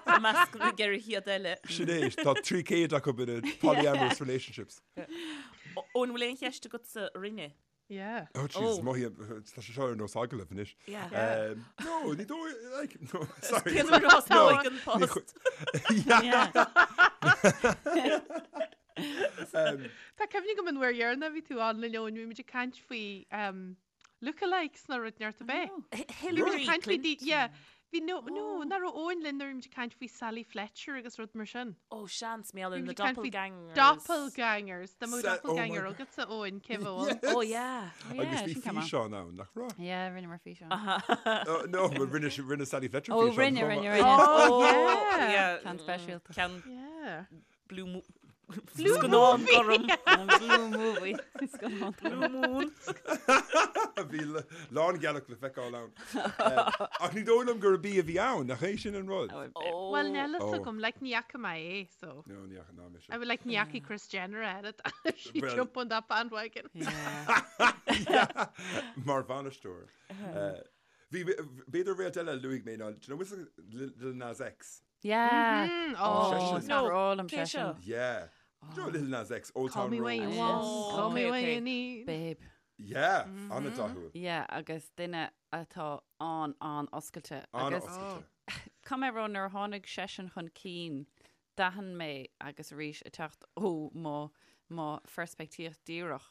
I measc na gceithre chéad eile. Sin é, tá 300 acu in a polyamorous relationships. Eoin, bhfuil aon cheist agatsa orainne? Yeah. Oh jeez, mothaím, tá sé seo ar nós agallamh anois. Yeah. No, ní dóigh, like, no, sorry. Cén uair a thosnóidh an post? Yeah. Tá cuimhne agam an uair dheireanach a bhí tú ann linn Eoin, bhí muid ag caint faoi lookalikes nó rud inteacht ab é. Hillary Clinton. Yeah. Bhí no, no, nach raibh Eoin linn nuair a bhí muid ag caint faoi Sally Fletcher agus rud mar sin. Oh, seans, mé Bhí na muid ag caint faoi doppelgangers. Doppelgangers. Dá mbeadh Sa- oh my doppelganger God. agatsa Eoin, cé bheadh ann? Oh, yeah. Agus bhí sin ceann maith. físeán ann, nach raibh? Yeah, rinneamar físeán. Oh, no, but rinne, si- rinne Sally Fletcher Oh, físeán. rinne, chomh rinne, maith. rinne. Oh, yeah. Yeah. Ceann speisialta. Ceann Yeah. Blue Mo- Blue Scannán movie. gorm. Blue movie. Scannán Blue Moon. Bhí lángealach le feiceáil ann. Ach ní dóigh liom gurb í a bhí ann, nach é sin an rud? Well, níl a fhios Oh. agam, like, ní fhaca mé é, so. No, ní fhaca ná mise. I would like ní fhaca Kris Jenner at it. She Well- jump on that bandwagon. Yeah. Mar bhainisteoir. Bhí b'fhéidir réalt eile a luaigh mé ná, do you know, Lil Nas X? Yeah. Mm, Oh, oh, is No, breá liom cé sé sin. seo? Yeah. Do you know Lil Nas X, Old Call Town me Road? when you Oh. want, call me Okay, when okay. you need. Babe. Yeah, an-dathúil. Yeah, agus duine atá an an-oscailte. Agus An-oscailte. Caithfidh mé a rá nuair a tháinig seisean chun cinn, d'aithin mé agus arís ag teacht ó mo mo pheirspictíocht díreach,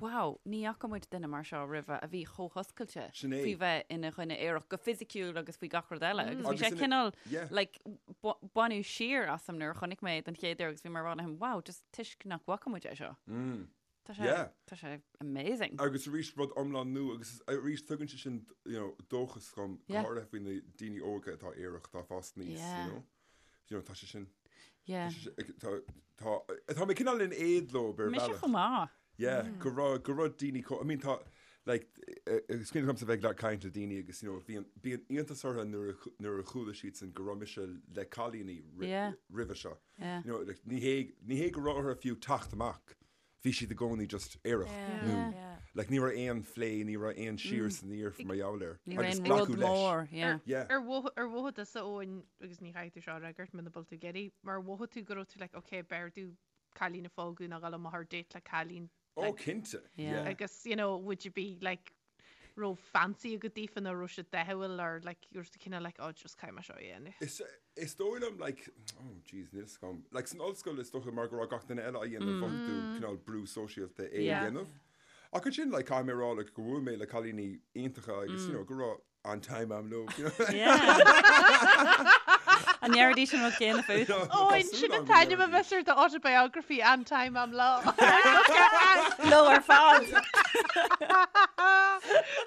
Wow, ní fhaca muid duine mar seo roimhe a bhí chomh hoscailte Sin é. faoi bheith ina dhuine aerach go fisiciúil agus faoi gach rud eile. Agus bhí Agus sé ina- cineál yeah. like, baineadh siar asam nuair a chonaic mé é den chéad uair agus bhí mé ag rá liom, wow, just toisc nach bhfaca muid é seo. Tá sé, Yeah. tá sé amazing. Agus arís rud iomlán nua agus arís tugann sé sin you know, dóchas dhom go Yeah. háirithe faoi na daoine óga atá aerach atá ag fás aníos, Yeah. you know. You know, tá sé sin Yeah. Tá tá tá mé cineál in éad leo ar Mise bhealach. chomh maith. Yeah, go raibh go raibh daoine chomh I mean tá like is cuimhin liomsa bheith ag caint le daoine agus you know bhíonn bíonn iontas orthu nuair a nuair a chuala siadsan go raibh mise le cailíní Yeah. roimhe seo. Yeah. You know, like, ní hé ní hé go raibh orthu fiú teacht amach. Bhí siad i gcónaí just aerach nó like ní raibh aon phlé, ní raibh aon siar is aniar mar gheall air. Ní raibh Agus aon rud glacadh leis. mór, yeah. Yeah. Ar mhothaigh ar mhothaigh tusa Eoin agus ní chaithfidh tú seo a fhreagairt muna bhfuil tú ag iarraidh, mar mhothaigh tú go raibh tú like ok b'fhearr domh cailín a phógadh ná dhul amach ar date le cailín Oh, like, cinnte. Yeah. Yeah. agus you know would you be like raibh fancy agat daofa nó raibh siad dathúil or like you were cineál like oh just caithfidh mé seo a dhéanamh. Is is dóigh liom like oh jeez níl 'fhios agam like san ollscoil is dócha mar go raibh gach duine eile á dhéanamh mhothaigh tú cineál brú sóisialta é a Yeah. dhéanamh. Ach ansin like caithfidh mé a rá like go bhfuair mé le cailíní iontacha agus you know go raibh an-time a'm leo you know. Yeah. An ndéarfaidís an rud céanna fút? Ó, Tá in súil sin agam an go t-ainm a ndéarfaidís. bheas ar do autobiography an-time a'm leo. Leo ar fad!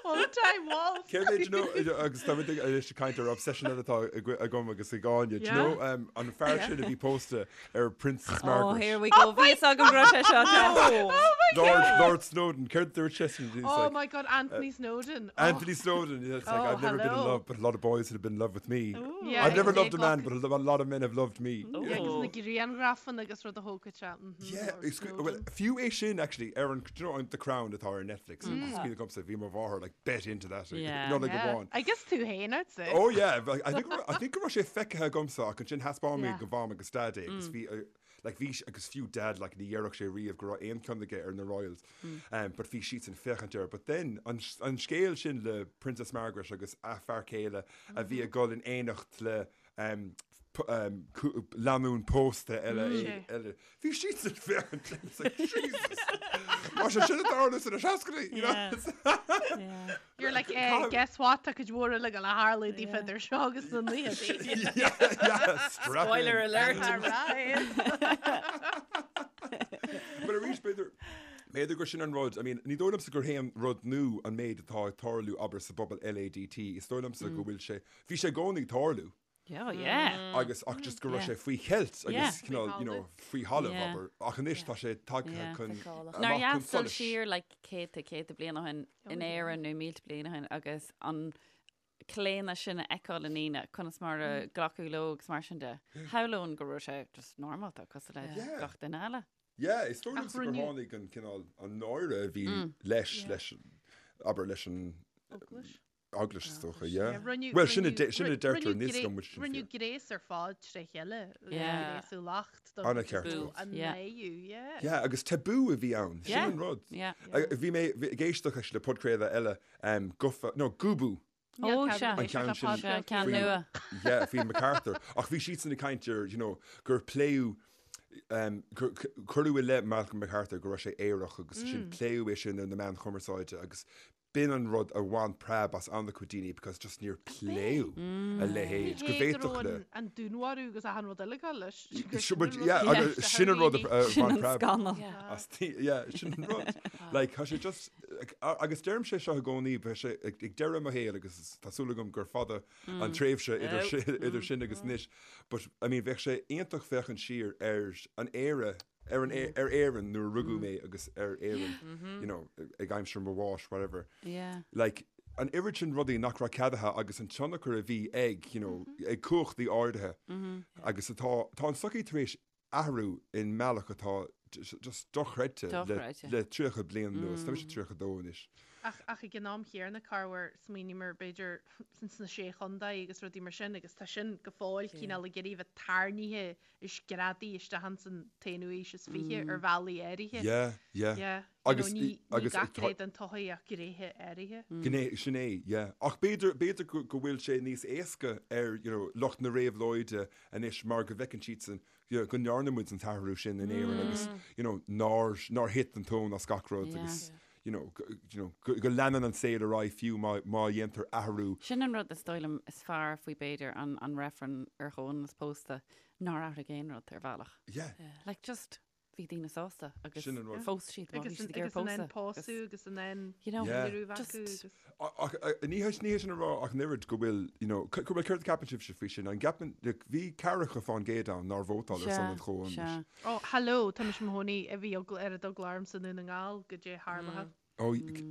Old time waltz. Céard é, do you know, agus tá muid ag anois ag caint ar obsession eile atá agam agus ag Áine, do you Yeah. know, um, an fear sin a bhí pósta ar Princess Oh, Margaret. here we go. Bhí fhios agam go raibh sé seo. Oh my Lord, God. Lord Snowdon, céard dúirt seisean? He's Oh like, my God, Anthony Snowdon. Oh. Anthony Snowdon. It's like, Oh, I've never been in hello. love, but a lot of boys have been in love with me. Yeah, I've never agus loved a man, but a lot of men have loved me. Yeah, agus na grianghrafanna agus rud a thógfadh sé. Mhm, Yeah, Lord it's good. Well, Snowdon. fiú é sin actually, ar an, do you know, The Crown atá ar Netflix. Is cuimhin liomsa, bhí mo mháthair like bet into that. like, Yeah. Not like Yeah. amháin. I guess tú féin, I'd say. Oh yeah, like, I think I think go raibh sé feicthe agamsa ach ansin thaispeáin mé Yeah. do mham agus dad é agus bhí uh, like bhí agus fiú dad like ní dhéarfadh sé riamh go raibh aon cheann aige ar na Royals. Um, but bhí siadsan ag féachaint air. But then an, an scéal sin le Princess Margaret agus a fear céile a bhí ag dul in éineacht le um, um, lánúin pósta eile Mm. eile. Bhí siadsan ag féachaint it's like, Jesus! Tá sé sin ag tarlú sna seascaidí, you know? Yeah. You're like, eh, guess what, tá cuid mhór eile ag gabháil a tharlú daofa idir seo agus na naochadaí. Yeah, yeah, strap Spoiler in. alert. Alright. But arís b'fhéidir b'fhéidir gur sin an rud, I mean, ní dóigh liomsa gur haon rud nua an méid atá ag tarlú abair sa bpobal LADT, is dóigh liomsa go bhfuil sé, bhí sé i gcónaí ag tarlú. Yeah, oh, yeah. Agus ach just go raibh sé faoi cheilt agus cineál, you know, faoi thalamh, Yeah. abair. Ach anois tá sé tagtha Yeah. chun, Feiceálach. Nár amach chun dheas dul solais. siar like céadta céadta bliain ó shin in Éirinn nó mílte bliain ó shin agus an claonadh sin a fheiceáil i ndaoine, conas mar a glacadh leo agus mar sin de. Shamhlóinn go raibh sé just normálta cosúil le Yeah. gach duine eile. Yeah, is dóigh Ach liomsa gur rinneadh- tháinig an cineál, an náire a bhí leis, leis. abair leis an Eaglais. Eaglais is dócha, yeah. Rinneadh, Bhuel, sin a rinneadh, de- sin a deirtear rinneadh níos gré- go bhfuil sin rinneadh fíor. gréas ar fad tré chéile, Yeah. gréasú lacht don An-cheart tabú agat. an Yeah. naoú, yeah. Yeah, agus tabú a bhí ann, sin Yeah. an rud. Yeah. A- Bhí mé bhí- ag éisteacht actually le podchraoladh eile, um, Gufa, no, Gúbú, Níl Ó, cead sea. éisteacht An ceann le sin. Sea, podchraoltaí. ceann Faoi- nua. yeah, faoi MacArthur. Ach bhí siadsan ag caint ar, you know, gur pléadh um, gur cuireadh i leith Malcolm MacArthur go raibh sé aerach agus sin pléadh é sin ar na meáin chumarsáide agus B'in an rud a bhain preab as an-chuid daoine because just níor pléadh a leithéid, go Ní hé go bhféadfadh raibh le. an an dúnmharú agus achan rud eile ag dul leis. Gur Sin sin an rud yeah, a agus cheist sin an rud a daoine. a Sin bhain an preab scannal. as daoine. Yeah, sin an rud. Like, tá sé just, like, a- agus deirim sé seo i gcónaí, beidh sé ag ag deireadh mo shaoil agus tá súil agam gur fada an tréimhse idir sin idir sin agus anois, but I mean bheadh sé iontach féachaint siar ar an Éire ar an ar Éirinn nuair a rugadh mé agus ar Éirinn you know ag aimsir mo bháis whatever. Yeah. Like an oiread sin rudaí nach raibh ceadaithe agus an tionchar a bhí ag you know ag cumhachtaí áirithe agus atá tá an tsochaí tar éis athrú i mbealach atá just dochreidte le Dochreidte. le 30 bliain anuas. Tá mise 32 anois. Ach ach ag an am chéanna corruair smaoiníomar b'fhéidir sna sé chontae agus rudaí mar sin agus tá sin go fóill cineál ag iarraidh bheith tarraingthe is greadaithe isteach ins an t-aonú haois is 20 ar bhealaí áirithe. Yeah, yeah. Yeah. Agus you know, ní, ní agus gach tá- gné den tsochaí ach gnéithe áirithe. Gné, sin é, yeah. Ach b'fhéidir, b'fhéidir go, go bhfuil sé níos éasca ar, you know, lucht na réabhlóide anois mar go bhfeiceann siadsan, you know, go ndearna muid an t-athrú sin in Éirinn agus, you know, nár, nár thit an tóin as gach rud Yeah. agus, you know, go, you know, go, go leanann an saol ar aghaidh fiú má, má dhéantar athrú. Sin an rud is dóigh liom is fearr faoi b'fhéidir an, an reifreann ar chomhionannas pósta nár athraigh aon rud ar bhealach. Yeah. Like just bhí daoine sásta agus Sin an rud. phós siad má bhí Agus siad an ag iarraidh agus an an pósadh. pósadh agus an an You know, Yeah. dealramh Just- acu agus Ach ní hé ní hé sin a rá ach an oiread go bhfuil, you know, go bhfuil céard a ceapann sibhse faoi sin? An gceapann, like, bhí ceathracha fán gcéad ann nár vótáil ar son an chomhionannais. Sea. Ó, hello, tá mise i mo chónaí a bhí ar an dul orm sa nDún na nGall goidé tharla. Ó,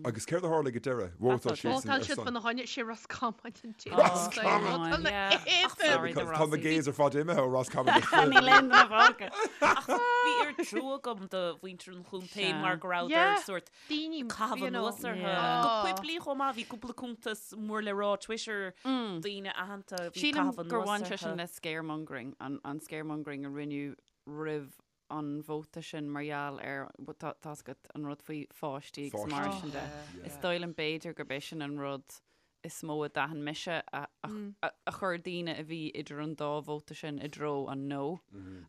agus céard a tharla ag an deireadh? Vótáil siad Vótáil ar siad son. fána choinne, sé Ros Comáin an té. Roscommon! Yeah. Sorry, the Because tá na Rossies. gays ar fad imithe ó Roscommon go fóill. Níl aon duine fágtha. Ach bhí oiread trua agam do mhuintir an chontae Sea. mar go rabhadar Yeah. sórt Daoine, caitheamh you know. anuas orthu. Yeah. Go poiblí chomh maith, bhí cúpla cuntas mór le rá Twitter, daoine aitheanta a bhí Sílim caitheamh gur anuas bhain sé sin orthu. le scaremongering, an, an scaremongering a rinneadh roimh an vóta sin mar gheall ar, tá 's agat an rud faoi pháistí agus mar Pháistí. sin de. Is dóigh liom b'fhéidir gurb é sin an rud is mó a d'aithin mise a, a, a, a chuir daoine a bhí idir an dá vóta sin i dtreo an no.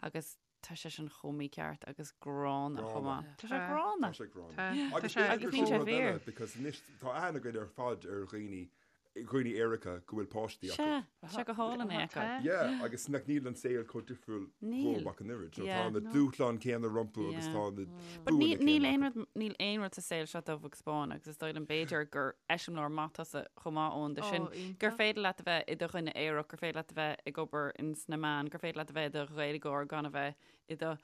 Agus tá sé sin chomh mícheart agus gránna chomh maith. Tá sé gránna. Tá sé gránna. Tá. Agus Tá sé- b'fhéidir Agus gur níl sin sé rud eile, fíor. because anois tá aithne againn ar fad ar dhaoine, dhaoine aeracha go bhfuil páistí acu. Sea, tá sé go hálainn é acu. Tá. Yeah, agus nach níl an saol chomh difriúil Níl. dhóibh ach an oiread. So Yeah. Tá na dúshláin céanna rompu agus Yeah. tá na But buanna níl níl céanna aon acu. rud níl aon rud sa saol seo dubh agus bán agus is dóigh liom b'fhéidir gur eiseamláir maith tusa chomh maith Eoin de sin Ó, iontach. gur féidir leat a bheith i do dhuine aerach, gur féidir leat a bheith ag obair ins na meáin, gur féidir leat a bheith i do Ghaeilgeoir gan a bheith i do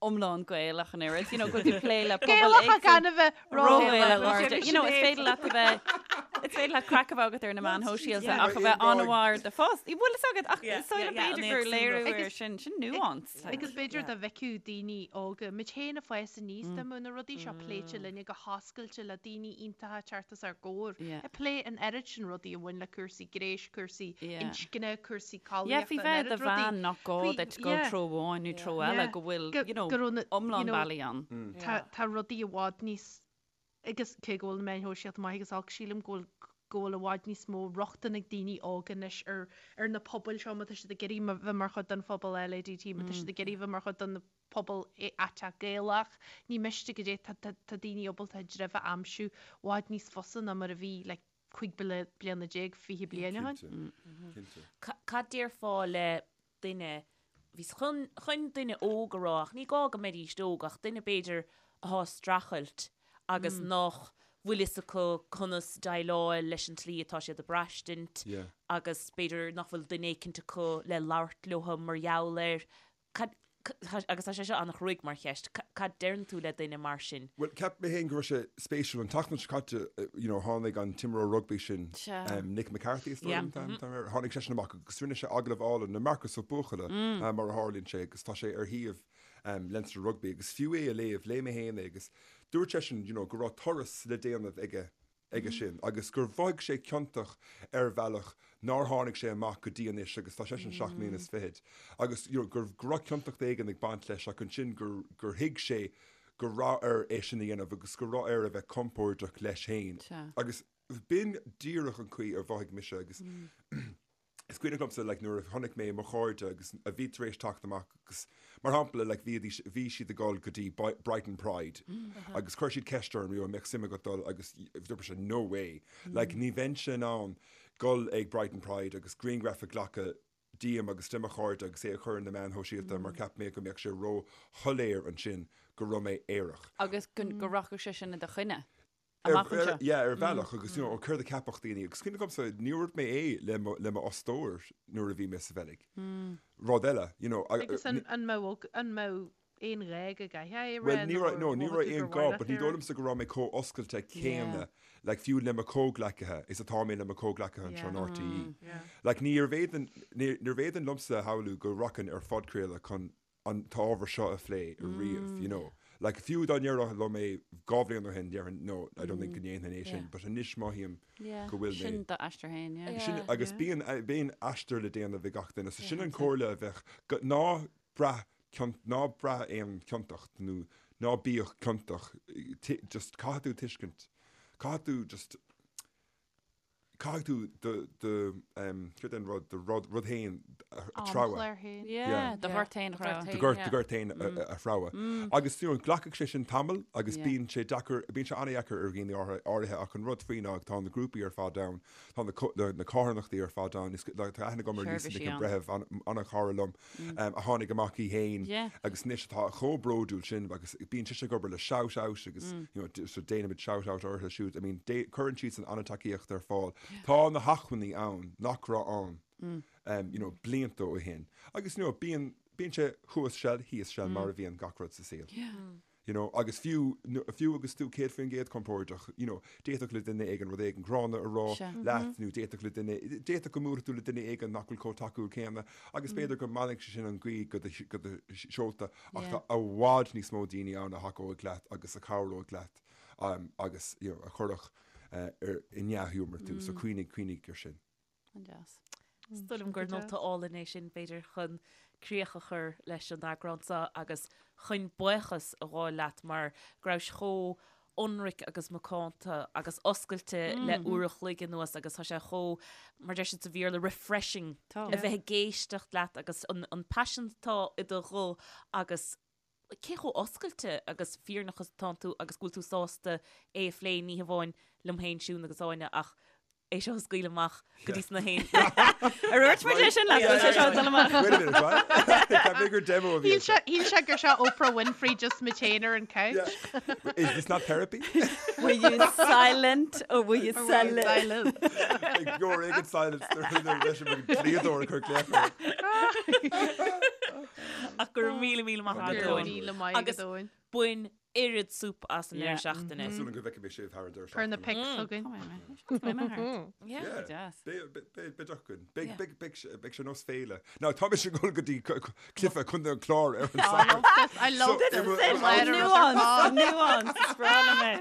iomlán Gaelach an oiread, you know, go bhfuil tú plé le pobal Gaelach éagsúil. gan a bheith Ró-Ghaelach, Ró-Ghaelach. You know, is féidir leat a bheith is féidir leat craic a bheith agat ar na meáin shóisialta yeah. ach a bheith an-mhór de fós. Bhfuil fhios agat ach Yeah, is dóigh liom yeah, yeah, b'fhéidir an gur léiriú éagsúlacht. ar sin, sin nuance. like. Agus b'fhéidir dá bhfeicfeadh daoine óga, muid féin ag fás aníos dá mbeadh na rudaí seo pléite linne go hoscailte le daoine iontacha ag teacht os ár gcomhair, Yeah. ag plé an oiread sin rudaí a bhain le cúrsaí gnéis, cúrsaí Yeah. inscne, cúrsaí Yeah, faoi collaíochta, an bheith oiread do rudaí. bhean nach gá Faoi- duit dul yeah. treo amháin nó treo Yeah. eile go bhfuil, Go- you know, go raibh na- iomlán you know, bealaí ann. Tá tá rudaí i bhfad níos agus cé go bhfuil na meáin shóisialta maith agus olc, sílim go bhfuil go bhfuil i bhfad níos mó rochtain ag daoine óga anois ar ar na pobail seo má tá siad ag iarraidh ma- bheith mar chuid den phobal LADT, má tá siad ag iarraidh bheith mar chuid den pobal aiteach Gaelach. Ní miste goidé tá tá tá daoine ábalta a dtreibh a aimsiú i bhfad níos fusa ná mar a bhí like 15 bliana, 20 bliain ó shin. Cinnte, cinnte. Cad déarfá le duine, bhíos chun, chun duine óg a rá ach ní gá go mbeidíst óg ach duine b'fhéidir athá ag streachailt agus nach bhfuil fhios acu conas déileáil leis an tslí atá siad ag braistint Yeah. agus b'fhéidir nach bhfuil duine éicint acu le labhairt leo mar gheall air. Cad, agus tá sé seo an-chruaidh mar cheist, cad deireann tú le duine mar sin? Bhuel, cheap mé féin go raibh sé spéisiúil. An tseachtain seo caite, you know, tháinig an t-imreoir rugbaí sin, Nick McCarthy is dóigh liom an t-ainm atá air, tháinig seisean amach agus rinne sé agallamh álainn le Marcus Ó Buachalla, mar a tharlaíonn sé, agus tá sé ar shuíomh Leinster Rugby agus fiú é a léamh, léigh mé féin é agus dúirt seisean, you know, go raibh turas le déanamh aige. aige sin agus gur mhothaigh sé ciontach ar bhealach nár tháinig sé amach go dtí anois agus tá seisean seacht mbliana is fichead agus you know gur go raibh ciontacht éigin ag baint leis ach ansin gur gur thuig sé go raibh air é sin a dhéanamh agus go raibh air a bheith compordach leis féin agus b'in díreach an chaoi a mhothaigh mise agus Is cuimhneach liomsa like nuair a chonaic mé mo chairde agus a bhí tar éis teacht amach agus mar shampla like bhíodís bhí siad ag dul go dtí Brighton Pride agus chuir siad ceist orm you know an mbeadh suim agat dul agus dúirt mise no way like ní bheinnse in ann dul ag Brighton Pride agus grianghraf a ghlacadh díom agus de mo chairde agus é a chur ar na meáin shóisialta mar cheap mé go mbeadh sé ró-shoiléir ansin go raibh mé aerach. Agus go go rachadh sé sin i do choinne. Amach anseo. Yeah, ar bhealach agus you know, céard a cheapfadh daoine agus cuimhneach liomsa níor dhúirt mé é le mo le mo fhostóir nuair a bhí mé sa Bheilg. Rud eile, you know. Agus an an mbeadh an mbeadh aon ghá go gcaithfeá é a rá Well ní raibh nó no ní mhothaigh raibh tú aon gur gá mhaith but leat ní é a dóigh rá? liomsa go raibh mé chomh oscailte céanna like fiú le mo chomhghleacaithe is atá mé le mo chomhghleacaithe anseo in Yeah. RTÉ. Yeah. Like níorbh fhéidir níorbh fhéidir liomsa a shamhlú go rachainn ar phodchraoladh chun an t-ábhar seo a phlé riamh, you know. Like, fiú dá ndéarfá liom é 2 bhliain ó shin, déarfainn, no, I don't think go ndéanfainn é sin, but anois mothaím go bhfuil mé. Sin d'aistear féin, yeah. Sin, agus bíonn, bíonn aistear le déanamh ag gach duine, so sin an chomhairle a bheadh, go, ná braith cion, ná braith aon chiontacht nó ná bíodh ciontach, just caithfidh tú tuiscint, caithfidh tú just, Caithfidh tú do, do, céard é an rud, do rud, rud féin a threabhadh. Amchlár féin. Yeah, do ghort féin a threabhadh. Do ghort, do ghort féin a threabhadh. Agus, you know, glacfaidh sé sin tamall agus bíonn sé deacair, bíonn sé an-dheacair ar dhaoine áirithe ach an rud faoi ná tá na grúpaí ar fad ann, tá na, na carthanachtaí ar fad ann, is, tá aithne agam ar Lisa Nic an Bhreithimh, an-chara liom, a tháinig amach í féin agus anois atá chomh bródúil sin agus bíonn sise ag obair le Shout Out agus you know, so déanaimid shout out orthu siúd. I mean, cuireann siadsan an-tacaíocht ar fáil. Tá na hacmhainní ann nach raibh ann um, you know, blianta ó shin. Agus you know, bíonn bíonn sé thuas seal, thíos seal mar a bhíonn gach rud sa saol. You know, agus fiú, fiú agus tú 100% compordach, you know, d'fhéadfadh le duine éigin rud éigin gránna a rá leat nó d'fhéadfadh le duine, d'fhéadfadh go mbuailfeadh tú le duine éigin nach bhfuil chomh tacúil céanna agus b'fhéidir go mbainfeadh sé sin an ghaoth go do, go do sheolta ach tá i bhfad níos mó daoine ann a thacóidh leat agus a chabhróidh leat um, agus, you know, a chuirfeadh uh, ar, i ndea-ghiúmar tú, so cuimhnigh, cuimhnigh ar sin. An-deas. Is dóigh liom gur nóta álainn é sin, b'fhéidir, chun críoch a chur leis an eagrán seo agus chun buíochas a ghabháil leat mar go rabhais chomh ionraic agus macánta agus oscailte le uair a chloig anuas agus tá sé chomh, mar deir siad sa Bhéarla, refreshing a bheith ag éisteacht leat agus an paisean atá i do ghuth agus cé chomh oscailte agus fírinneach is atánn tú agus go bhfuil tú sásta é a phlé, ní hamháin liom féin, Siún agus Áine, ach é seo a scaoileadh amach go dtí sna haon. Ar dhúirt muid é sin leat? Go bhfuil sé seo ag dul amach? Wait a minute, what? Ceap mé gur demo a bhí Shíl sé, shíl sé gur seo Oprah Winfrey just muid féin ar an couch. Yeah. Is this not therapy? Were you silent or were you Or were you silent? silent? Ag go éigin silence leis an dlíodóir ag cur glaoch air. Ach go raibh míle míle maith agat, Go raibh Eoin. míle maith Agus agat, Eoin. bain oiread súp as an Yeah. deireadh seachtaine. Tá súil agam go bhfeicfidh mé sibh thar an deireadh Cuir na seachtaine. pics chugainn. Beidh mé thart. Yeah. Yeah. Deas. Beidh beidh beidh againn. Beidh Yeah. beidh beidh sé beidh sé nós féile. Now tá mise ag dul go dtí cluiche Contae an Chláir ar an I Satharn. love this. I love So, this. it will- This it will- letter is Nuance, on. nuance, is breá liom é.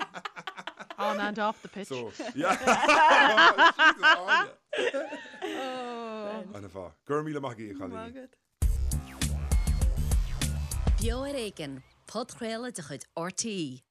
On and off the pitch. So, yeah. Jesus, Áine. Oh. An-mhaith. Go raibh míle maith agaibh, a chailíní. Beo ar Éigean, podchraoladh de chuid RTÉ.